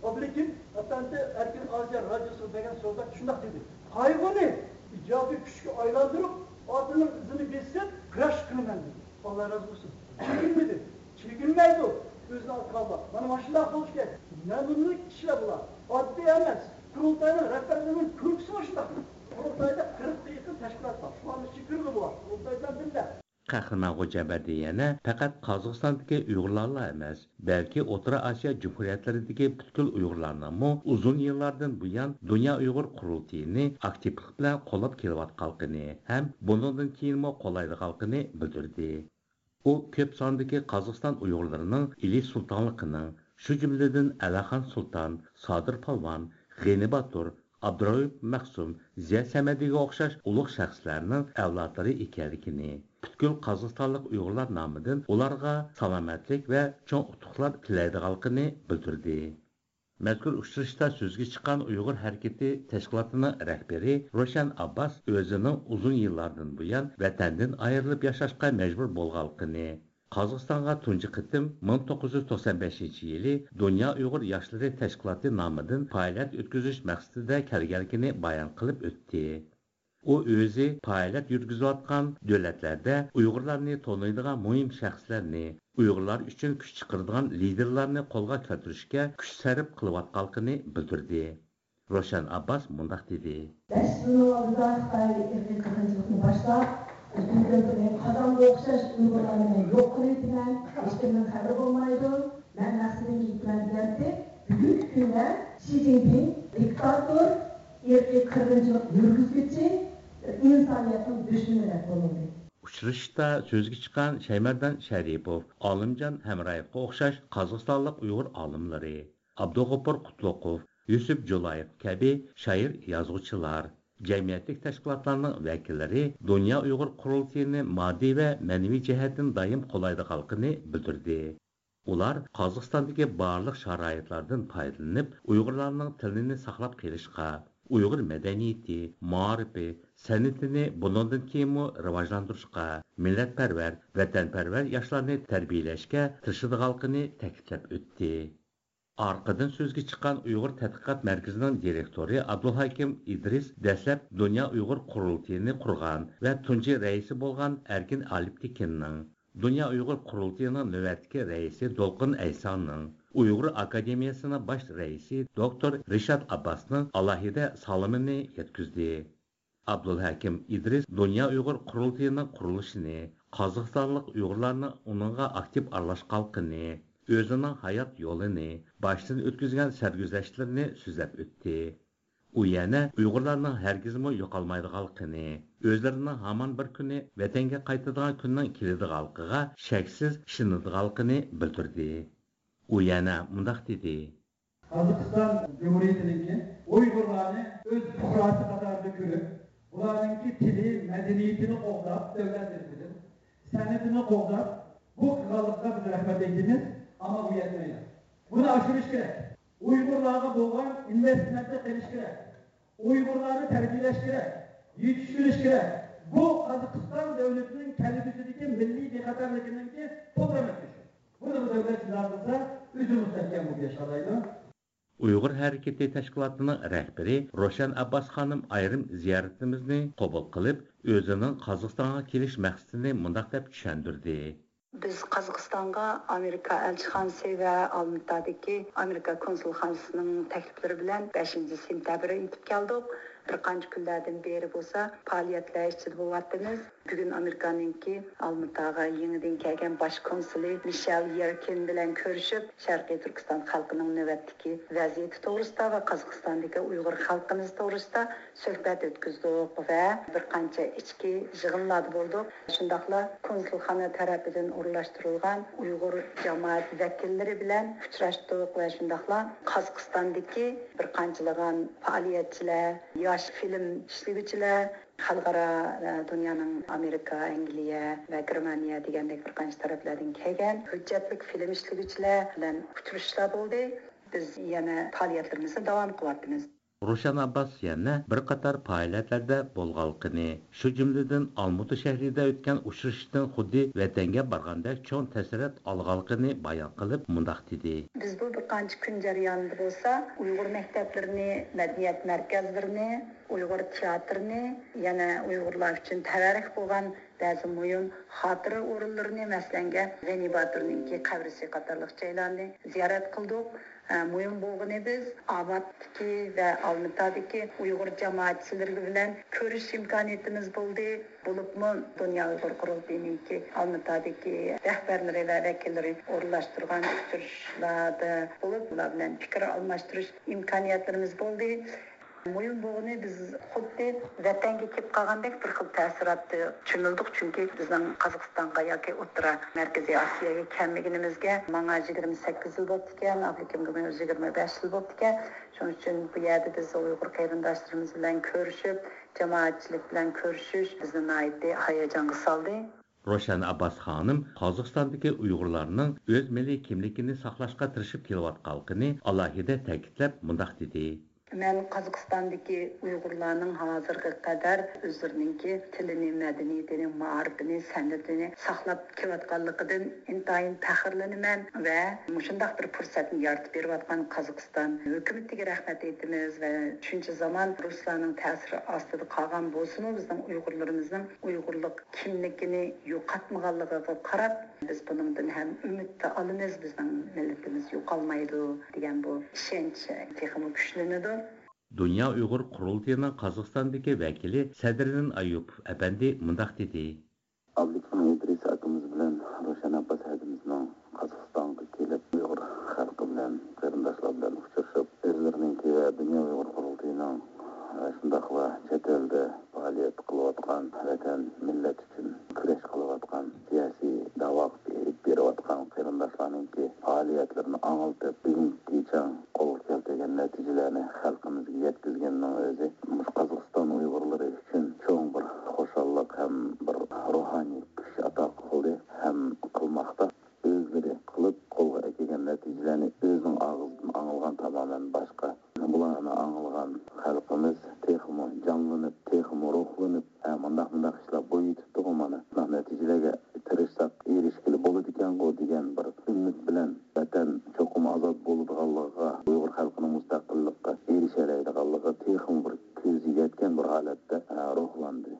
ئابلىكىم ئەپەندى ئەركىن ئاسىيا رادىيوسىغا بەرگەن سۆھبەتتە شۇنداق دېدى: «قايغۇنى ئىجابىي كۈچكە ئايلاندۇرۇپ، ئاتىنىڭ ئىزىنى بېسىپ كۈرەش قىلىمەن» دېدى. ئاللا رازى بولسۇن. چېكىنمىدى. چېكىنمەيدۇ. ئۆزىنى ئاتىغانلار مانا ماشۇنداق بولۇشى كېرەك. نەمۇنىلىك كىشىلەر بۇلار. ئاددىي ئەمەس. قۇرۇلتاينىڭ رەھبەرلىرىنىڭ كۈلكىسى مۇشۇنداق. قۇرۇلتايدا قىرىققا يېقىن تەشكىلات بار. شۇلارنىڭ ئىچىگە كىرگىلى بولار. قۇرۇلتاي بىلەن بىللە. قەھرىمان خوجامبەردى يەنە پەقەت قازاقىستاندىكى ئۇيغۇرلارلا ئەمەس، بەلكى ئوتتۇرا ئاسىيا جۇمھۇرىيەتلىرىدىكى پۈتكۈل ئۇيغۇرلارنىڭمۇ ئۇزۇن يىللاردىن بۇيان دۇنيا ئۇيغۇر قۇرۇلتىيىنى ئاكتىپلىق بىلەن قوللاپ كېلىۋاتقانلىقىنى ھەم بۇنىڭدىن كېيىنمۇ قوللايدىغانلىقىنى بىلدۈردى. ئۇ كۆپ ساندىكى قازاقىستان ئۇيغۇرلىرىنىڭ ئىلى سۇلتانلىقىنىڭ، شۇ جۈملىدىن ئەلىخان سۇلتان، سادىر پالۋان، غېنى باتۇر، ئابدۇرائۇپ مەخسۇم، زىيا سەمەدىگە ئوخشاش ئۇلۇغ شەخسلەرنىڭ ئەۋلادلىرى ئىكەنلىكىنى، پۈتكۈل قازاقىستانلىق ئۇيغۇرلار نامىدىن ئۇلارغا سالامەتلىك ۋە چوڭ ئۇتۇقلار تىلەيدىغانلىقىنى بىلدۈردى. مەزكۇر ئۇچرىشىشتا سۆزگە چىققان ئۇيغۇر ھەرىكىتى تەشكىلاتىنىڭ رەھبىرى روشەن ئابباس ئۆزىنىڭ ئۇزۇن يىللاردىن بۇيان ۋەتەندىن ئايرىلىپ ياشاشقا مەجبۇر بولغانلىقىنى، قازاقىستانغا تۇنجى قېتىم مىڭ توققۇز يۈز توقسان بەشىنچى يىلى دۇنيا ئۇيغۇر ياشلىرى تەشكىلاتى نامىدىن پائالىيەت ئۆتكۈزۈش مەقسىتىدە كەلگەنلىكىنى بايان قىلىپ ئۆتتى. ئۇ ئۆزى پائالىيەت يۈرگۈزۈۋاتقان دۆلەتلەردە ئۇيغۇرلارنى تونۇيدىغان مۇھىم شەخسلەرنى، ئۇيغۇرلار ئۈچۈن كۈچ چىقىرىدىغان لىدېرلارنى قولغا كەلتۈرۈشكە كۈچ سەرپ قىلىۋاتقانلىقىنى بىلدۈردى. روشەن ئابباس مۇنداق دېدى. بەش يىلنىڭ ئالدىدا خىتاي ئىرقىي قىرغىنچىلىقنى باشلاپ، ئۆزىنىڭ كۆزىگە قازانغا ئوخشاش ئۇيغۇرلارنى مەن يوق قىلىۋېتىمەن، ھېچكىمنىڭ خەۋىرى بولمايدۇ، مەن مەقسىتىمگە يېتىمەن دېگەنتى. بۈگۈنكى كۈندە شى جىنپىڭ دىكتاتور، ئىرقىي قىرغىنچىلىق يۈرگۈزگۈچى، ئىنسانىيەتنىڭ دۈشمىنى دەپ بولۇندى. ئۇچرىشىشتا سۆزگە چىققان شەيمەردان شەرىپوف، ئالىمجان ھەمرايېۋقا ئوخشاش قازاقىستانلىق ئۇيغۇر ئالىملىرى، ئابدۇغوپۇر قۇتلۇقوف، يۈسۈپ جۇلايېف كەبى شائىر-يازغۇچىلار، جەمئىيەتلىك تەشكىلاتلارنىڭ ۋەكىللىرى دۇنيا ئۇيغۇر قۇرۇلتىيىنى ماددىي ۋە مەنىۋى جەھەتتىن دائىم قوللايدىغانلىقىنى بىلدۈردى. ئۇلار قازاقىستاندىكى بارلىق شارائىتلاردىن پايدىلىنىپ، ئۇيغۇرلارنىڭ تىلىنى ساقلاپ قېلىشقا، ئۇيغۇر مەدەنىيىتى، مائارىپى، سەنئىتىنى بۇنىڭدىن كېيىنمۇ راۋاجلاندۇرۇشقا، مىللەتپەرۋەر، ۋەتەنپەرۋەر ياشلارنى تەربىيەلەشكە تىرىشىدىغانلىقىنى تەكىتلەپ ئۆتتى. ئارقىدىن سۆزگە چىققان ئۇيغۇر تەتقىقات مەركىزىنىڭ دىرېكتورى ئابدۇلھاكىم ئىدرىس دەسلەپ دۇنيا ئۇيغۇر قۇرۇلتىيىنى قۇرغان ۋە تۇنجى رەئىسى بولغان ئەركىن ئالپتېكىننىڭ، دۇنيا ئۇيغۇر قۇرۇلتىيىنىڭ نۆۋەتتىكى رەئىسى دولقۇن ئەيسانىڭ، ئۇيغۇر ئاكادېمىيەسىنىڭ باش رەئىسى دوكتور رىشات ئابباسنىڭ ئالاھىدە سالىمىنى يەتكۈزدى. ئابدۇلھەكىم ئىدرىس دۇنيا ئۇيغۇر قۇرۇلتىيىنىڭ قۇرۇلۇشىنى، قازاقىستانلىق ئۇيغۇرلارنىڭ ئۇنىڭغا ئاكتىپ ئارىلاشقانلىقىنى، ئۆزىنىڭ ھايات يولىنى، باشتىن ئۆتكۈزگەن سەرگۈزەشتلىرىنى سۆزلەپ ئۆتتى. ئۇ يەنە ئۇيغۇرلارنىڭ ھەرگىزمۇ يوقالمايدىغانلىقىنى، ئۆزلىرىنىڭ ھامان بىر كۈنى ۋەتەنگە قايتىدىغان كۈننىڭ كېلىدىغانلىقىغا شەكسىز ئىشىنىدىغانلىقىنى بىلدۈردى. ئۇ يەنە مۇنداق دېدى. قازاقىستان جۇمھۇرىيىتىنىڭكى ئۇيغۇرلارنى ئۆز پۇقراسى قاتارىدا كۆرۈپ، ئۇلارنىڭكى تىلى، مەدەنىيىتىنى قوغداپ، دۆلەت تەرىپىدىن سەنئىتىنى قوغداپ، بۇ قىلغانلىقىغا بىز رەھمەت ئېيتىمىز، ئەمما بۇ يەتمەيدۇ. بۇنى ئاشۇرۇش كېرەك. ئۇيغۇرلارغا بولغان ئىنۋېستمېنتنى قىلىش كېرەك. ئۇيغۇرلارنى تەربىيەلەش كېرەك، يېتىشتۈرۈش كېرەك. بۇ قازاقىستان دۆلىتىنىڭ كەلگۈسىدىكى مىللىي بىخەتەرلىكىنىڭكى پۇترىمى. بۇنى دۆلەت جىدال قىلسا، ئۆزى مۇستەھكەم بولۇپ ياشالايدۇ. ئۇيغۇر ھەرىكىتى تەشكىلاتىنىڭ رەھبىرى روشەن ئابباس خانىم ئايرىم زىيارىتىمىزنى قوبۇل قىلىپ، ئۆزىنىڭ قازاقىستانغا كېلىش مەقسىتىنى مۇنداق دەپ چۈشەندۈردى. بىز قازاقىستانغا ئامېرىكا ئەلچىخانىسى ۋە ئالمىتادىكى ئامېرىكا كونسۇلخانىسىنىڭ تەكلىپلىرى بىلەن بەشىنچى سېنتەبىر يېتىپ كەلدۇق. بىر قانچە كۈنلەردىن بېرى بولسا پائالىيەتلەر ئىچىدە بولۇۋاتىمىز. بۈگۈن ئامېرىكانىڭكى ئالمىتاغا يېڭىدىن كەلگەن باش كونسۇلى مىشېل يېركىن بىلەن كۆرۈشۈپ، شەرقىي تۈركىستان خەلقىنىڭ نۆۋەتتىكى ۋەزىيىتى توغرىسىدا ۋە قازاقىستاندىكى ئۇيغۇر خەلقىمىز توغرىسىدا سۆھبەت ئۆتكۈزدۇق ۋە بىر قانچە ئىچكى يىغىنلاردا بولدۇق. شۇنداقلا كونسۇلخانا تەرىپىدىن ئورۇنلاشتۇرۇلغان ئۇيغۇر جامائەت ۋەكىللىرى بىلەن ئۇچراشتۇق ۋە شۇنداقلا قازاقىستاندىكى بىر قانچىلىغان پائالىيەتچىلەر، ياش فىلىم ئىشلىگۈچىلەر، خەلقئارا، ئە، دۇنيانىڭ ئامېرىكا، ئەنگلىيە ۋە گېرمانىيە دېگەندەك بىر قانچە تەرەپلەردىن كەلگەن ھۆججەتلىك فىلىم ئىشلىگۈچىلەر بىلەن ئۇچرىشىشلار بولدى. بىز يەنە پائالىيەتلىرىمىزنى داۋام قىلىۋاتىمىز. روشەن ئابباس يەنە بىر قاتار پائالىيەتلەردە بولغانلىقىنى، شۇ جۈملىدىن ئالمۇتا شەھىرىدە ئۆتكەن ئۇچرىشىشتىن خۇددى ۋەتەنگە بارغاندەك چوڭ تەسىرات ئالغانلىقىنى بايان قىلىپ، مۇنداق دېدى. بىز بۇ بىر قانچە كۈن جەريانىدا بولسا ئۇيغۇر مەكتەپلىرىنى، مەدەنىيەت مەركەزلىرىنى، ئۇيغۇر تىياتىرىنى، يەنە ئۇيغۇرلار ئۈچۈن تەۋەررۈك بولغان بەزى مۇھىم خاتىرە ئورۇنلىرىنى، مەسىلەنگە، غېنى باتۇرنىڭكى قەبرىسى قاتارلىق جايلارنى زىيارەت قىلدۇق. ئە، مۇھىم بولغىنى بىز ئاۋاتتىكى ۋە ئالمىتادىكى ئۇيغۇر جامائەتچىلىرى بىلەن كۆرۈشۈش ئىمكانىيىتىمىز بولدى. بولۇپمۇ دۇنيا ئۇيغۇر قۇرۇلتىيىنىڭكى ئالمىتادىكى رەھبەرلىرى ۋە ۋەكىللىرى ئورۇنلاشتۇرغان ئۇچرىشىشلاردا بولۇپ، ئۇلار بىلەن پىكىر ئالماشتۇرۇش ئىمكانىيەتلىرىمىز بولدى. مۇھىم بولغىنى، بىز خۇددى ۋەتەنگە كېلىپ قالغاندەك بىر خىل تەسىراتتا چۆمۈلدۇق، چۈنكى بىزنىڭ قازاقىستانغا ياكى ئوتتۇرا مەركىزىي ئاسىياگە كەلمىگىنىمىزگە ماڭا يىگىرمە سەككىز يىل بوپتىكەن، ئابلىكىمگىمۇ يىگىرمە بەش يىل بوپتىكەن. شۇنىڭ ئۈچۈن بۇ يەردە بىز ئۇيغۇر قېرىنداشلىرىمىز بىلەن كۆرۈشۈپ، جامائەتچىلىك بىلەن كۆرۈشۈش بىزنى ناھايىتى ھاياجانغا سالدى. روشەن ئابباس خانىم قازاقىستاندىكى ئۇيغۇرلارنىڭ ئۆز مىللىي كىملىكىنى ساقلاشقا تىرىشىپ كېلىۋاتقانلىقىنى ئالاھىدە تەكىتلەپ مۇنداق دېدى. مەن قازاقىستاندىكى ئۇيغۇرلارنىڭ ھازىرغا قەدەر ئۆزلىرىنىڭكى تىلىنى، مەدەنىيىتىنى، مائارىپىنى، سەنئىتىنى ساقلاپ كېلىۋاتقانلىقىدىن ئىنتايىن پەخىرلىنىمەن ۋە مۇشۇنداق بىر پۇرسەتنى يارىتىپ بېرىۋاتقان قازاقىستان ھۆكۈمىتىگە رەھمەت ئېيتىمىز ۋە شۇنچە زامان رۇسلارنىڭ تەسىرى ئاستىدا قالغان بولسىمۇ، بىزنىڭ ئۇيغۇرلىرىمىزنىڭ ئۇيغۇرلۇق كىملىكىنى يوقاتمىغانلىقىغا قاراپ، بىز بۇنىڭدىن ھەم ئۈمىدنى ئالىمىز، بىزنىڭ مىللىتىمىز يوقالمايدۇ دېگەن بۇ ئىشەنچ تېخىمۇ كۈچلىنىدۇ. دۇنيا ئۇيغۇر قۇرۇلتىيىنىڭ قازاقىستاندىكى ۋەكىلى سەدرىدىن ئايۇپوف ئەپەندى مۇنداق دېدى. ئابلىكىم ئىدرىس ئاكىمىز بىلەن روشەن ئابباس ھەدىمىزنىڭ قازاقىستانغا كېلىپ، ئۇيغۇر خەلقى بىلەن، قېرىنداشلار بىلەن ئۇچرىشىپ، ئۆزلىرىنىڭكى ۋە دۇنيا ئۇيغۇر قۇرۇلتىيىنىڭ، شۇنداقلا چەت ئەلدە پائالىيەت قىلىۋاتقان، ۋەتەن، مىللەت ئۈچۈن كۈرەش قىلىۋاتقان سىياسىي داۋاغا ئېلىپ بېرىۋاتقان قېرىنداشلارنىڭكى پائالىيەتلىرىنى ئاڭلىتىپ، بۈگۈنگىچە قولغا كەلتۈرگەن نەتىجىلەرنى خەلقىمىزگە يەتكۈزگەننىڭ ئۆزى مۇشۇ قازاقىستان ئۇيغۇرلىرى ئۈچۈن چوڭ بىر خۇشاللىق ھەم بىر روھانىي كۈچ ئاتا قىلدى ھەم قىلماقتا. ئۆزلىرى قىلىپ قولغا ئەكەلگەن نەتىجىلەرنى ئۆزىنىڭ ئاغزىدىن ئاڭلىغان تامامەن باشقا. بۇلارنى ئاڭلىغان خەلقىمىز تېخىمۇ جانلىنىپ، تېخىمۇ روھلىنىپ، ھە، مۇنداق، مۇنداق ئىشلار بولۇۋېتىپتىغۇ مانا. مۇنداق نەتىجىلەرگە تىرىشساق ئېرىشكىلى بولىدىكەنغۇ دېگەن بىر ئۈمىد بىلەن ۋەتەن چوقۇم ئازاد بولىدىغانلىقىغا، ئۇيغۇر خەلقىنىڭ مۇستەقىللىققا ئېرىشەلەيدىغانلىقىغا تېخىمۇ بىر كۆزى يەتكەن بىر ھالەتتە، ھە، روھلاندى.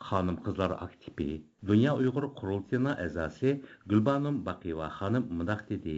خانىم-قىزلار ئاكتىپى، دۇنيا ئۇيغۇر قۇرۇلتىيىنىڭ ئەزاسى گۈلبانۇم باقىيېۋا خانىم مۇنداق دېدى.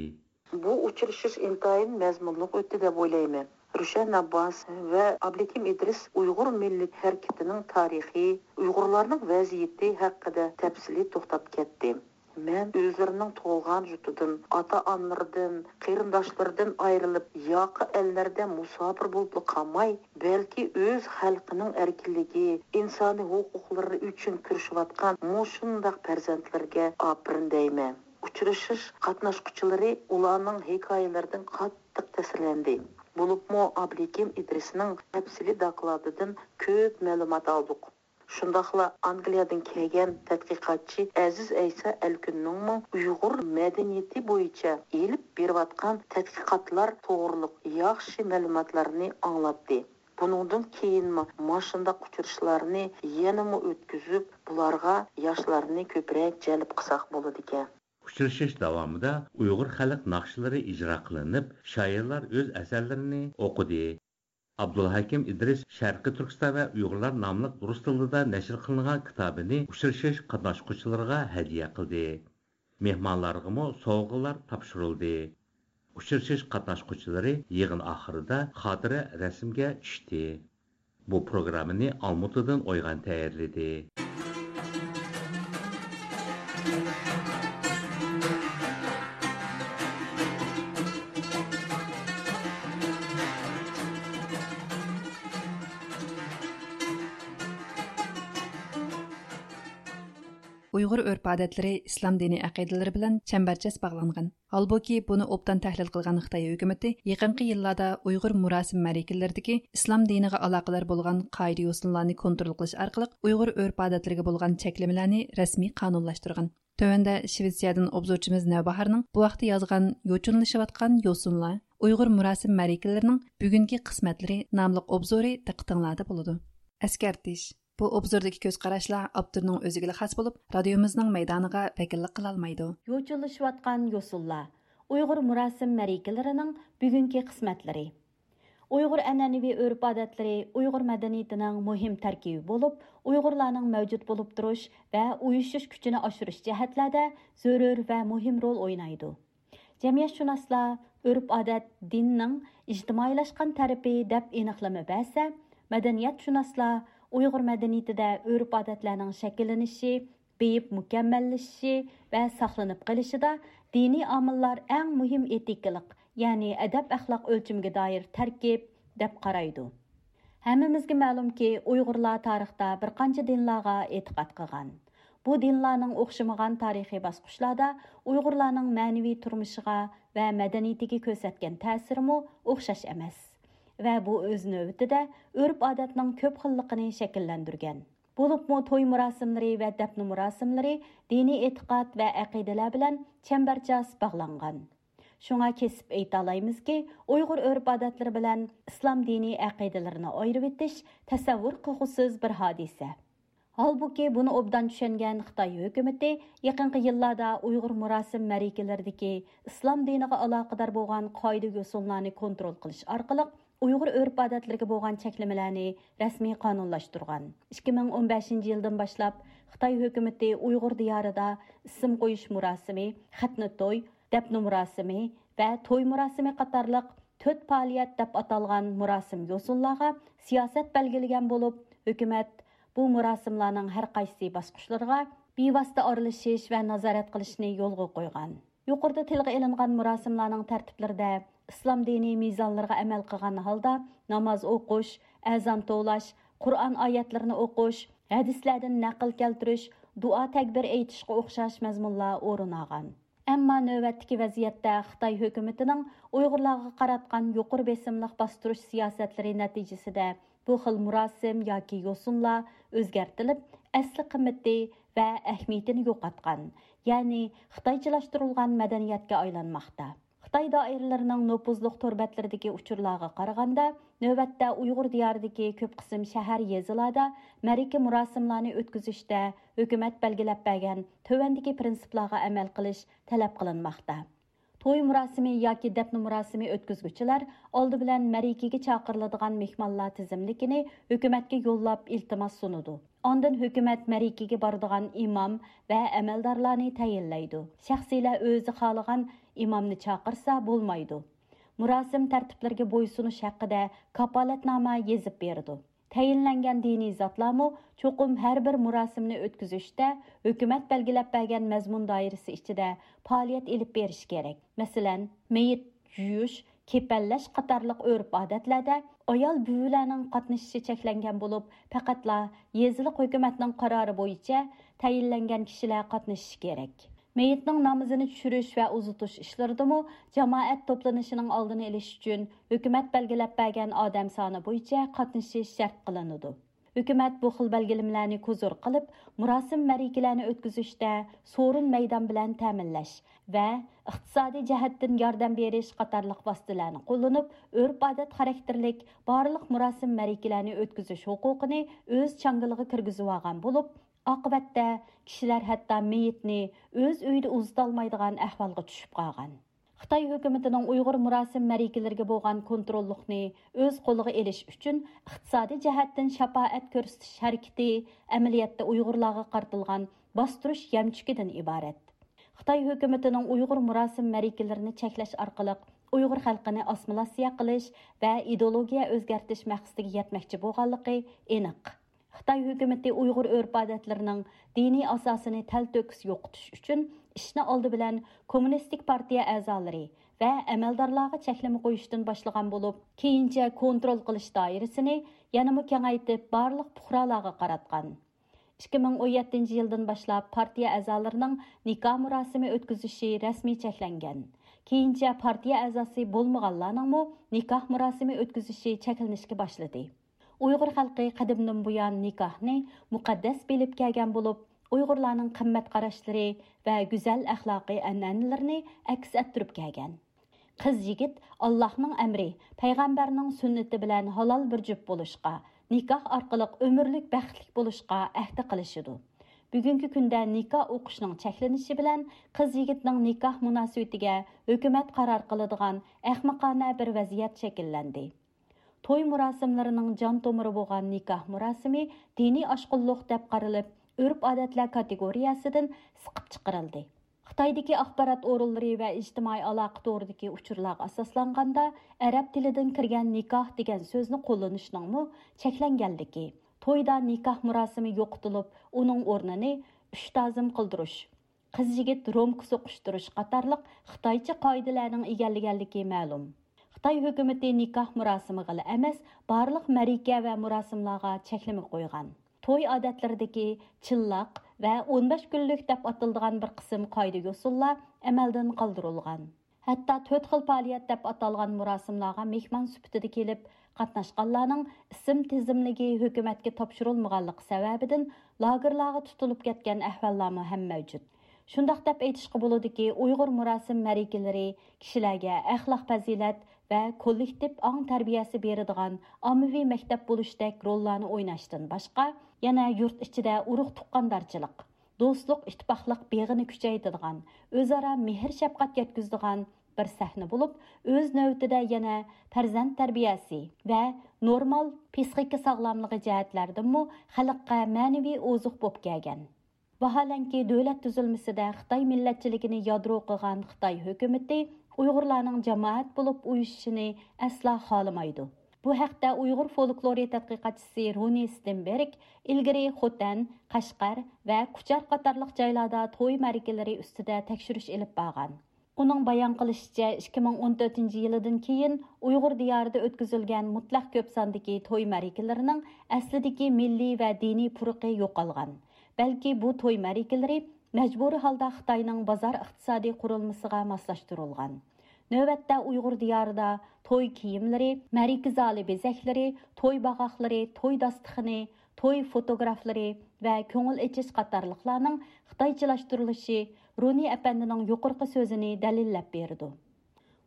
بۇ ئۇچرىشىش ئىنتايىن مەزمۇنلۇق ئۆتتى دەپ ئويلايمەن. روشەن ئابباس ۋە ئابلىكىم ئىدرىس ئۇيغۇر مىللىي ھەرىكىتىنىڭ تارىخى، ئۇيغۇرلارنىڭ ۋەزىيىتى ھەققىدە تەپسىلىي توختاپ كەتتى. مەن ئۆزلىرىنىڭ تۇغۇلغان يۇرتىدىن، ئاتا-ئانىلىرىدىن، قېرىنداشلىرىدىن ئايرىلىپ، ياقا ئەللەردە مۇساپىر بولۇپلا قالماي، بەلكى ئۆز خەلقىنىڭ ئەركىنلىكى، ئىنسانىي ھوقۇقلىرى ئۈچۈن كۈرىشىۋاتقان مۇشۇنداق پەرزەنتلەرگە ئاپىرىن دەيمەن. ئۇچرىشىش قاتناشقۇچىلىرى ئۇلارنىڭ ھېكايىلىرىدىن قاتتىق تەسىرلەندى. بولۇپمۇ ئابلىكىم ئىدرىسنىڭ تەپسىلىي دوكلاتىدىن كۆپ مەلۇمات ئالدۇق. شۇنداقلا ئانگلىيەدىن كەلگەن تەتقىقاتچى ئەزىز ئەيسا ئەلكۈننىڭمۇ ئۇيغۇر مەدەنىيىتى بويىچە ئېلىپ بېرىۋاتقان تەتقىقاتلار توغرۇلۇق ياخشى مەلۇماتلارنى ئاڭلاتتى. بۇنىڭدىن كېيىنمۇ ماشۇنداق ئۇچرىشىشلارنى يەنىمۇ ئۆتكۈزۈپ، بۇلارغا ياشلارنى كۆپرەك جەلپ قىلساق بولىدىكەن. ئۇچرىشىش داۋامىدا ئۇيغۇر خەلق ناخشىلىرى ئىجرا قىلىنىپ، شائىرلار ئۆز ئەسەرلىرىنى ئوقۇدى. ئابدۇلھەكىم ئىدرىس شەرقىي تۈركىستان ۋە ئۇيغۇرلار ناملىق رۇس تىلىدا نەشر قىلىنغان كىتابىنى ئۇچرىشىش قاتناشقۇچىلىرىغا ھەدىيە قىلدى. مېھمانلارغىمۇ سوۋغىلار تاپشۇرۇلدى. ئۇچرىشىش قاتناشقۇچىلىرى يىغىن ئاخىرىدا خاتىرە رەسىمگە چۈشتى. بۇ پروگراممىنى ئالمۇتىدىن ئويغان تەييارلىدى. ئۇيغۇر ئۆرپ-ئادەتلىرى ئىسلام دىنىي ئەقىدىلىرى بىلەن چەمبەرچاس باغلانغان. ھالبۇكى، بۇنى ئوبدان تەھلىل قىلغان خىتاي ھۆكۈمىتى يېقىنقى يىللاردا ئۇيغۇر مۇراسىم مەرىكىلىرىدىكى ئىسلام دىنىغا ئالاقىدار بولغان قائىدە-يوسۇنلارنى كونترول قىلىش ئارقىلىق ئۇيغۇر ئۆرپ-ئادەتلىرىگە بولغان چەكلىمىلەرنى رەسمىي قانۇنلاشتۇرغان. تۆۋەندە شىۋېتسىيەدىن ئوبزورچىمىز نەۋباھارنىڭ بۇ ھەقتە يازغان يوچۇنلىشىۋاتقان يوسۇنلار، ئۇيغۇر مۇراسىم مەرىكىلىرىنىڭ بۈگۈنكى قىسمەتلىرى ناملىق ئوبزورى دىققىتىڭلاردا بولىدۇ. ئەسكەرتىش. بۇ ئوبزوردىكى كۆز قاراشلار ئاپتورنىڭ ئۆزىگىلا خاس بولۇپ، رادىيومىزنىڭ مەيدانىغا ۋەكىللىك قىلالمايدۇ. يوچۇنلىشىۋاتقان يوسۇنلار، ئۇيغۇر مۇراسىم مەرىكىلىرىنىڭ بۈگۈنكى قىسمەتلىرى. ئۇيغۇر ئەنئەنىۋى ئۆرپ-ئادەتلىرى ئۇيغۇر مەدەنىيىتىنىڭ مۇھىم تەركىبى بولۇپ، ئۇيغۇرلارنىڭ مەۋجۇت بولۇپ تۇرۇش ۋە ئۇيۇشۇش كۈچىنى ئاشۇرۇش جەھەتلەردە زۆرۈر ۋە مۇھىم رول ئوينايدۇ. جەمئىيەتشۇناسلار ئۆرپ-ئادەت دىننىڭ ئىجتىمائىيلاشقان تەرىپى دەپ ئېنىقلىما بەرسە، مەدەنىيەتشۇناسلار ئۇيغۇر مەدەنىيىتىدە ئۆرپ-ئادەتلەرنىڭ شەكىللىنىشى، بېيىپ مۇكەممەللىشىشى ۋە ساقلىنىپ قېلىشىدا دىنىي ئامىللار ئەڭ مۇھىم ئېتىكىلىق، يەنى ئەدەپ-ئەخلاق ئۆلچىمىگە دائىر تەركىب، دەپ قارايدۇ. ھەممىمىزگە مەلۇمكى، ئۇيغۇرلار تارىختا بىر قانچە دىنلارغا ئېتىقاد قىلغان. بۇ دىنلارنىڭ ئوخشىمىغان تارىخىي باسقۇچلاردا ئۇيغۇرلارنىڭ مەنىۋى تۇرمۇشىغا ۋە مەدەنىيىتىگە كۆرسەتكەن تەسىرىمۇ ئوخشاش ئەمەس. ۋە بۇ ئۆز نۆۋىتىدە ئۆرپ-ئادەتنىڭ كۆپ خىللىقىنى شەكىللەندۈرگەن. بولۇپمۇ توي مۇراسىملىرى ۋە دەپنە مۇراسىملىرى دىنىي ئېتىقاد ۋە ئەقىدىلەر بىلەن چەمبەرچاس باغلانغان. شۇڭا كېسىپ ئېيتالايمىزكى، ئۇيغۇر ئۆرپ-ئادەتلىرى بىلەن ئىسلام دىنىي ئەقىدىلىرىنى ئايرىۋېتىش تەسەۋۋۇر قىلغۇسىز بىر ھادىسە. ھالبۇكى، بۇنى ئوبدان چۈشەنگەن خىتاي ھۆكۈمىتى يېقىنقى يىللاردا ئۇيغۇر مۇراسىم مەرىكىلىرىدىكى ئىسلام دىنىغا ئالاقىدار بولغان قائىدە-يوسۇنلارنى كونترول قىلىش ئارقىلىق، ئۇيغۇر ئۆرپ-ئادەتلىرىگە بولغان چەكلىمىلەرنى رەسمىي قانۇنلاشتۇرغان. ئىككى مىڭ ئون بەشىنچى يىلدىن باشلاپ، خىتاي ھۆكۈمىتى ئۇيغۇر دىيارىدا ئىسىم قويۇش مۇراسىمى، خەتنە توي، دەپنە مۇراسىمى ۋە توي مۇراسىمى قاتارلىق تۆت پائالىيەت دەپ ئاتالغان مۇراسىم يوسۇنلارغا سىياسەت بەلگىلىگەن بولۇپ، ھۆكۈمەت بۇ مۇراسىملارنىڭ ھەر قايسى باسقۇچلىرىغا بىۋاسىتە ئارىلىشىش ۋە نازارەت قىلىشنى يولغا قويغان. يۇقىرىدا تىلغا ئېلىنغان مۇراسىملارنىڭ تەرتىپلىرىدە ئىسلام دىنىي مىزانلىرىغا ئەمەل قىلغان ھالدا ناماز ئوقۇش، ئەزان توۋلاش، قۇرئان ئايەتلىرىنى ئوقۇش، ھەدىسلەردىن نەقىل كەلتۈرۈش، دۇئا تەكبىر ئېيتىشقا ئوخشاش مەزمۇنلار ئورۇن ئالغان. ئەمما نۆۋەتتىكى ۋەزىيەتتە خىتاي ھۆكۈمىتىنىڭ ئۇيغۇرلارغا قاراتقان يۇقىرى بېسىملىق باستۇرۇش سىياسەتلىرى نەتىجىسىدە بۇ خىل مۇراسىم ياكى يوسۇنلار ئۆزگەرتىلىپ، ئەسلى قىممىتى ۋە ئەھمىيىتىنى يوقاتقان، يەنى خىتايچىلاشتۇرۇلغان مەدەنىيەتكە ئايلانماقتا. خىتاي دائىرىلىرىنىڭ نوپۇزلۇق تور بەتلىرىدىكى ئۇچۇرلارغا قارىغاندا، نۆۋەتتە ئۇيغۇر دىيارىدىكى كۆپ قىسىم شەھەر، يېزىلاردا مەرىكە مۇراسىملارنى ئۆتكۈزۈشتە ھۆكۈمەت بەلگىلەپ بەرگەن تۆۋەندىكى پىرىنسىپلارغا ئەمەل قىلىش تەلەپ قىلىنماقتا. توي مۇراسىمى ياكى دەپنە مۇراسىمى ئۆتكۈزگۈچىلەر ئالدى بىلەن مەرىكىگە چاقىرىلىدىغان مېھمانلار تىزىملىكىنى ھۆكۈمەتكە يوللاپ ئىلتىماس سۇنىدۇ. ئاندىن ھۆكۈمەت مەرىكىگە بارىدىغان ئىمام ۋە ئەمەلدارلارنى تەيىنلەيدۇ. شەخسىيلەر ئۆزى خالىغان ئىمامنى چاقىرسا بولمايدۇ. مۇراسىم تەرتىپلىرىگە بويسۇنۇش ھەققىدە كاپالەتنامە يېزىپ بېرىدۇ. تەيىنلەنگەن دىنىي زاتلارمۇ چوقۇم ھەر بىر مۇراسىمنى ئۆتكۈزۈشتە ھۆكۈمەت بەلگىلەپ بەرگەن مەزمۇن دائىرىسى ئىچىدە پائالىيەت ئېلىپ بېرىشى كېرەك. مەسىلەن، مېيىت يۇيۇش، كېپەنلەش قاتارلىق ئۆرپ-ئادەتلەردە ئايال بۈۋىلەرنىڭ قاتنىشىشى چەكلەنگەن بولۇپ، پەقەتلا يېزىلىق ھۆكۈمەتنىڭ قارارى بويىچە تەيىنلەنگەن كىشىلەر قاتنىشىشى كېرەك. مېيىتنىڭ نامىزىنى چۈشۈرۈش ۋە ئۇزىتىش ئىشلىرىدىمۇ جامائەت توپلىنىشىنىڭ ئالدىنى ئېلىش ئۈچۈن ھۆكۈمەت بەلگىلەپ بەرگەن ئادەم سانى بويىچە قاتنىشىش شەرت قىلىنىدۇ. ھۆكۈمەت بۇ خىل بەلگىلىمىلەرنى كوزۇر قىلىپ، مۇراسىم-مەرىكىلەرنى ئۆتكۈزۈشتە سورۇن مەيدان بىلەن تەمىنلەش ۋە ئىقتىسادىي جەھەتتىن ياردەم بېرىش قاتارلىق ۋاسىتىلەرنى قوللىنىپ، ئۆرپ-ئادەت خاراكتېرلىك بارلىق مۇراسىم-مەرىكىلەرنى ئۆتكۈزۈش ھوقۇقىنى ئۆز چاڭگىلىغا كىرگۈزۈۋالغان بولۇپ، ئاقىۋەتتە كىشىلەر ھەتتا مېيىتنى ئۆز ئۆيىدە ئۇزىتالمايدىغان ئەھۋالغا چۈشۈپ قالغان. خىتاي ھۆكۈمىتىنىڭ ئۇيغۇر مۇراسىم مەرىكىلىرىگە بولغان كونتروللۇقنى ئۆز قولىغا ئېلىش ئۈچۈن ئىقتىسادىي جەھەتتىن شاپائەت كۆرسىتىش ھەرىكىتى ئەمەلىيەتتە ئۇيغۇرلارغا قارىتىلغان باستۇرۇش يەمچۈكىدىن ئىبارەت. خىتاي ھۆكۈمىتىنىڭ ئۇيغۇر مۇراسىم مەرىكىلىرىنى چەكلەش ئارقىلىق ئۇيغۇر خەلقىنى ئاسسىمىلياتسىيە قىلىش ۋە ئىدېئولوگىيە ئۆزگەرتىش مەقسىتىگە يەتمەكچى بولغانلىقى ئېنىق. خىتاي ھۆكۈمىتى ئۇيغۇر ئۆرپ-ئادەتلىرىنىڭ دىنىي ئاساسىنى تەلتۆكۈس يوقىتىش ئۈچۈن ئىشنى ئالدى بىلەن كوممۇنىستىك پارتىيە ئەزالىرى ۋە ئەمەلدارلارغا چەكلىمە قويۇشتىن باشلىغان بولۇپ، كېيىنچە كونترول قىلىش دائىرىسىنى يەنىمۇ كېڭەيتىپ، بارلىق پۇقرالارغا قاراتقان. ئىككى مىڭ ئون يەتتىنچى يىلدىن باشلاپ پارتىيە ئەزالىرىنىڭ نىكاھ مۇراسىمى ئۆتكۈزۈشى رەسمىي چەكلەنگەن. كېيىنچە پارتىيە ئەزاسى بولمىغانلارنىڭمۇ نىكاھ مۇراسىمى ئۆتكۈزۈشى چەكلىنىشكە باشلىدى. ئۇيغۇر خەلقى قەدىمدىن بۇيان نىكاھنى مۇقەددەس بىلىپ كەلگەن بولۇپ، ئۇيغۇرلارنىڭ قىممەت قاراشلىرى ۋە گۈزەل ئەخلاقىي ئەنئەنىلىرىنى ئەكس ئەتتۈرۈپ كەلگەن. قىز-يىگىت ئاللاھنىڭ ئەمرى، پەيغەمبەرنىڭ سۈننىتى بىلەن ھالال بىر جۈپ بولۇشقا، نىكاھ ئارقىلىق ئۆمۈرلۈك بەختلىك بولۇشقا ئەھدە قىلىشىدۇ. بۈگۈنكى كۈندە نىكاھ ئوقۇشنىڭ چەكلىنىشى بىلەن قىز-يىگىتنىڭ نىكاھ مۇناسىۋىتىگە ھۆكۈمەت قارار قىلىدىغان ئەخمىقانە بىر ۋەزىيەت شەكىللەندى. توي مۇراسىملىرىنىڭ جان تومۇرى بولغان نىكاھ مۇراسىمى دىنىي ئاشقۇنلۇق دەپ قارىلىپ، ئۆرپ-ئادەتلەر كاتېگورىيەسىدىن سىقىپ چىقىرىلدى. خىتايدىكى ئاخبارات ئورۇنلىرى ۋە ئىجتىمائىي ئالاقە تورىدىكى ئۇچۇرلارغا ئاساسلانغاندا، ئەرەب تىلىدىن كىرگەن نىكاھ دېگەن سۆزنى قوللىنىشنىڭمۇ چەكلەنگەنلىكى، تويدا نىكاھ مۇراسىمى يوقىتىلىپ، ئۇنىڭ ئورنىنى ئۈچ تازىم قىلدۇرۇش، قىز-يىگىت رومكا سوقۇشتۇرۇش قاتارلىق خىتايچە قائىدىلەرنىڭ ئىگىلىگەنلىكى مەلۇم. خىتاي ھۆكۈمىتى نىكاھ مۇراسىمىغىلا ئەمەس، بارلىق مەرىكە ۋە مۇراسىملارغا چەكلىمە قويغان. توي ئادەتلىرىدىكى چىللاق ۋە ئون بەش كۈنلۈك دەپ ئاتىلىدىغان بىر قىسىم قائىدە-يوسۇنلار ئەمەلدىن قالدۇرۇلغان. ھەتتا تۆت خىل پائالىيەت دەپ ئاتالغان مۇراسىملارغا مېھمان سۈپىتىدە كېلىپ قاتناشقانلارنىڭ ئىسىم تىزىملىكى ھۆكۈمەتكە تاپشۇرۇلمىغانلىقى سەۋەبىدىن، لاگېرلارغا تۇتۇلۇپ كەتكەن ئەھۋاللارمۇ ھەم مەۋجۇت. شۇنداق دەپ ئېيتىشقا بولىدۇكى، ئۇيغۇر مۇراسىم مەرىكىلىرى كىشىلەرگە ئەخلاق-پەزىلەت ۋە كوللېكتىپ ئاڭ تەربىيەسى بېرىدىغان ئاممىۋى مەكتەپ بولۇشتەك روللارنى ئويناشتىن باشقا، يەنە يۇرت ئىچىدە ئۇرۇق-تۇغقاندارچىلىق، دوستلۇق، ئىتتىپاقلىق بېغىنى كۈچەيتىدىغان، ئۆزئارا مېھىر-شەپقەت يەتكۈزىدىغان بىر سەھنە بولۇپ، ئۆز نۆۋىتىدە يەنە پەرزەنت تەربىيەسى ۋە نورمال پىسخىكا ساغلاملىقى جەھەتلەردىنمۇ خەلققە مەنىۋى ئوزۇق بولۇپ كەلگەن. ۋاھالەنكى، دۆلەت تۈزۈلمىسىدە خىتاي مىللەتچىلىكىنى يادرو قىلغان خىتاي ھۆكۈمىتى ئۇيغۇرلارنىڭ جامائەت بولۇپ ئۇيۇشۇشىنى ئەسلا خالىمايدۇ. بۇ ھەقتە ئۇيغۇر فولكلورى تەتقىقاتچىسى رۇنى ستېنبېرگ ئىلگىرى خوتەن، قەشقەر ۋە كۇچار قاتارلىق جايلاردا توي مەرىكىلىرى ئۈستىدە تەكشۈرۈش ئېلىپ بارغان. ئۇنىڭ بايان قىلىشىچە، ئىككى مىڭ ئون تۆتىنچى يىلىدىن كېيىن ئۇيغۇر دىيارىدا ئۆتكۈزۈلگەن مۇتلەق كۆپ ساندىكى توي مەرىكىلىرىنىڭ ئەسلىدىكى مىللىي ۋە دىنىي پۇرىقى يوقالغان. بەلكى بۇ توي مەرىكىلىرى مەجبۇرىي ھالدا خىتاينىڭ بازار ئىقتىسادىي قۇرۇلمىسىغا ماسلاشتۇرۇلغان. نۆۋەتتە ئۇيغۇر دىيارىدا توي كىيىملىرى، مەرىكە زالى بېزەكلىرى، توي باغاقلىرى، توي داستىخىنى، توي فوتوگرافلىرى ۋە كۆڭۈل ئېچىش قاتارلىقلارنىڭ خىتايچىلاشتۇرۇلۇشى رۇنى ئەپەندىنىڭ يۇقىرىقى سۆزىنى دەلىللەپ بېرىدۇ.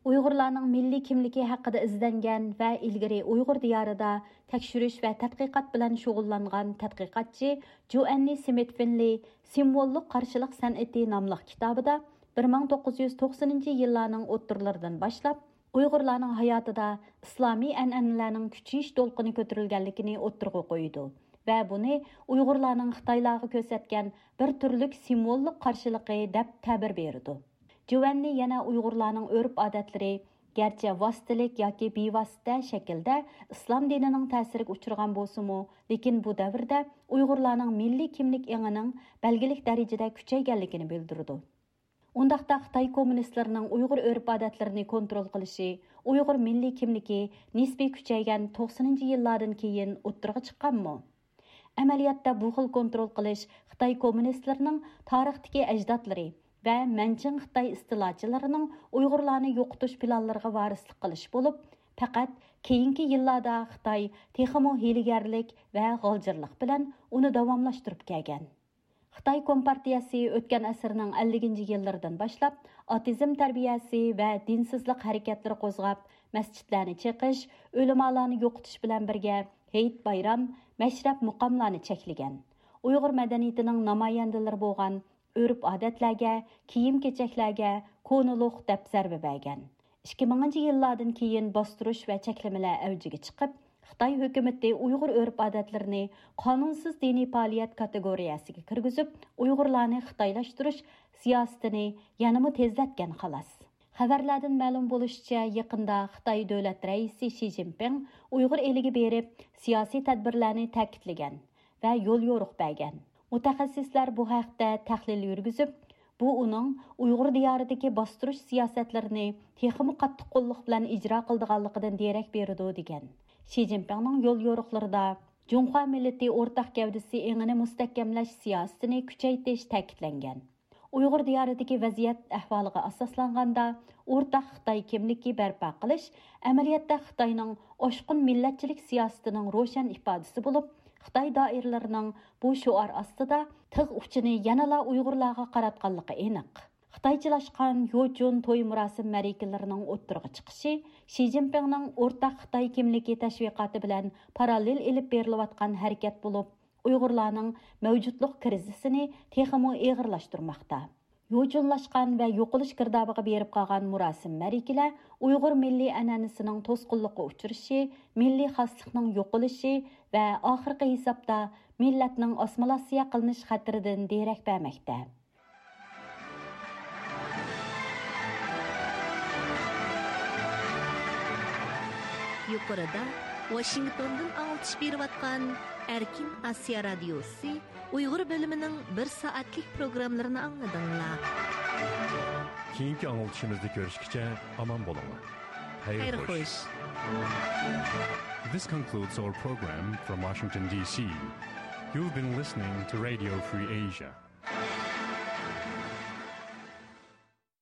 ئۇيغۇرلارنىڭ مىللىي كىملىكى ھەققىدە ئىزدەنگەن ۋە ئىلگىرى ئۇيغۇر دىيارىدا تەكشۈرۈش ۋە تەتقىقات بىلەن شۇغۇللانغان تەتقىقاتچى جوئەننى سمىت فىنلېي سىمۋوللۇق قارشىلىق سەنئىتى ناملىق كىتابىدا بىر مىڭ توققۇز يۈز توقسىنىنچى يىللارنىڭ ئوتتۇرىلىرىدىن باشلاپ، ئۇيغۇرلارنىڭ ھاياتىدا ئىسلامىي ئەنئەنىلەرنىڭ كۈچىيىش دولقۇنى كۆتۈرۈلگەنلىكىنى ئوتتۇرىغا قويىدۇ ۋە بۇنى ئۇيغۇرلارنىڭ خىتايلارغا كۆرسەتكەن بىر تۈرلۈك سىمۋوللۇق قارشىلىقى دەپ تەبىر بېرىدۇ. جۇۋەننى يەنە ئۇيغۇرلارنىڭ ئۆرپ-ئادەتلىرى، گەرچە ۋاسىتىلىك ياكى بىۋاسىتە شەكىلدە ئىسلام دىنىنىڭ تەسىرىگە ئۇچرىغان بولسىمۇ، لېكىن بۇ دەۋردە ئۇيغۇرلارنىڭ مىللىي كىملىك ئېڭىنىڭ بەلگىلىك دەرىجىدە كۈچەيگەنلىكىنى بىلدۈرىدۇ. ئۇنداقتا خىتاي كوممۇنىستلىرىنىڭ ئۇيغۇر ئۆرپ-ئادەتلىرىنى كونترول قىلىشى، ئۇيغۇر مىللىي كىملىكى نىسپىي كۈچەيگەن توقسىنىنچى يىللاردىن كېيىن ئوتتۇرىغا چىققانمۇ؟ ئەمەلىيەتتە بۇ خىل كونترول قىلىش خىتاي كوممۇنىستلىرىنىڭ تارىختىكى ئەجدادلىرى ۋە مەنچىڭ خىتاي ئىستىلاچىلىرىنىڭ ئۇيغۇرلارنى يوقىتىش پىلانلىرىغا ۋارىسلىق قىلىش بولۇپ، پەقەت كېيىنكى يىللاردا خىتاي تېخىمۇ ھىيلىگەرلىك ۋە غالجىرلىق بىلەن ئۇنى داۋاملاشتۇرۇپ كەلگەن. خىتاي كومپارتىيەسى ئۆتكەن ئەسىرنىڭ ئەللىكىنچى يىللىرىدىن باشلاپ ئاتېئىزم تەربىيەسى ۋە دىنسىزلىق ھەرىكەتلىرى قوزغاپ، مەسچىتلەرنى چېقىش، ئۆلىمالارنى يوقىتىش بىلەن بىرگە ھېيت-بايرام، مەشرەپ-مۇقاملارنى چەكلىگەن. ئۇيغۇر مەدەنىيىتىنىڭ نامايەندىلىرى بولغان ئۆرپ-ئادەتلەرگە، كىيىم-كېچەكلەرگە كونىلۇق دەپ زەربە بەرگەن. ئىككى مىڭىنچى يىللاردىن كېيىن باستۇرۇش ۋە چەكلىمىلەر ئەۋجىگە چىقىپ، خىتاي ھۆكۈمىتى ئۇيغۇر ئۆرپ-ئادەتلىرىنى قانۇنسىز دىنىي پائالىيەت كاتېگورىيەسىگە كىرگۈزۈپ، ئۇيغۇرلارنى خىتايلاشتۇرۇش سىياسىتىنى يەنىمۇ تېزلەتكەن، خالاس. خەۋەرلەردىن مەلۇم بولۇشىچە، يېقىندا خىتاي دۆلەت رەئىسى شى جىنپىڭ ئۇيغۇر ئېلىگە بېرىپ، سىياسىي تەدبىرلەرنى تەكىتلىگەن ۋە يوليورۇق بەرگەن. مۇتەخەسسىسلەر بۇ ھەقتە تەھلىل يۈرگۈزۈپ، بۇ ئۇنىڭ ئۇيغۇر دىيارىدىكى باستۇرۇش سىياسەتلىرىنى تېخىمۇ قاتتىق قوللۇق بىلەن ئىجرا قىلىدىغانلىقىدىن دېرەك بېرىدۇ، دېگەن. شى جىنپىڭنىڭ يوليورۇقلىرىدا جۇڭخۇا مىللىتى ئورتاق گەۋدىسى ئېڭىنى مۇستەھكەملەش سىياسىتىنى كۈچەيتىش تەكىتلەنگەن. ئۇيغۇر دىيارىدىكى ۋەزىيەت ئەھۋالىغا ئاساسلانغاندا، ئورتاق خىتاي كىملىكى بەرپا قىلىش ئەمەلىيەتتە خىتاينىڭ ئاشقۇن مىللەتچىلىك سىياسىتىنىڭ روشەن ئىپادىسى بولۇپ، خىتاي دائىرىلىرىنىڭ بۇ شوئار ئاستىدا تىغ ئۇچىنى يەنىلا ئۇيغۇرلارغا قاراتقانلىقى ئېنىق. خىتايچىلاشقان يوچۇن توي مۇراسىم مەرىكىلىرىنىڭ ئوتتۇرىغا چىقىشى شى جىنپىڭنىڭ ئورتاق خىتاي كىملىكى تەشۋىقاتى بىلەن پاراللېل ئېلىپ بېرىلىۋاتقان ھەرىكەت بولۇپ، ئۇيغۇرلارنىڭ مەۋجۇتلۇق كىرىزىسىنى تېخىمۇ ئېغىرلاشتۇرماقتا. يوچۇنلاشقان ۋە يوقىلىش گىردابىغا بېرىپ قالغان مۇراسىم مەرىكىلەر ئۇيغۇر مىللىي ئەنئەنىسىنىڭ توسقۇنلۇققا ئۇچرىشى، مىللىي خاسلىقنىڭ يوقىلىشى ۋە ئاخىرقى ھېسابتا مىللەتنىڭ ئاسسىمىلياتسىيە قىلىنىش خەتىرىدىن دېرەك بەرمەكتە. يۇقىرىدا ۋاشىنگتوندىن ئاڭلىتىش بېرىۋاتقان ئەركىن ئاسىيا رادىيوسى ئۇيغۇر بۆلۈمىنىڭ بىر سائەتلىك پروگراممىلىرىنى ئاڭلىدىڭلار. كېيىنكى ئاڭلىتىشىمىزدا كۆرۈشكىچە ئامان بولۇڭلار. خەير خوش. This concludes our program from Washington, D C. You've been listening to Radio Free Asia.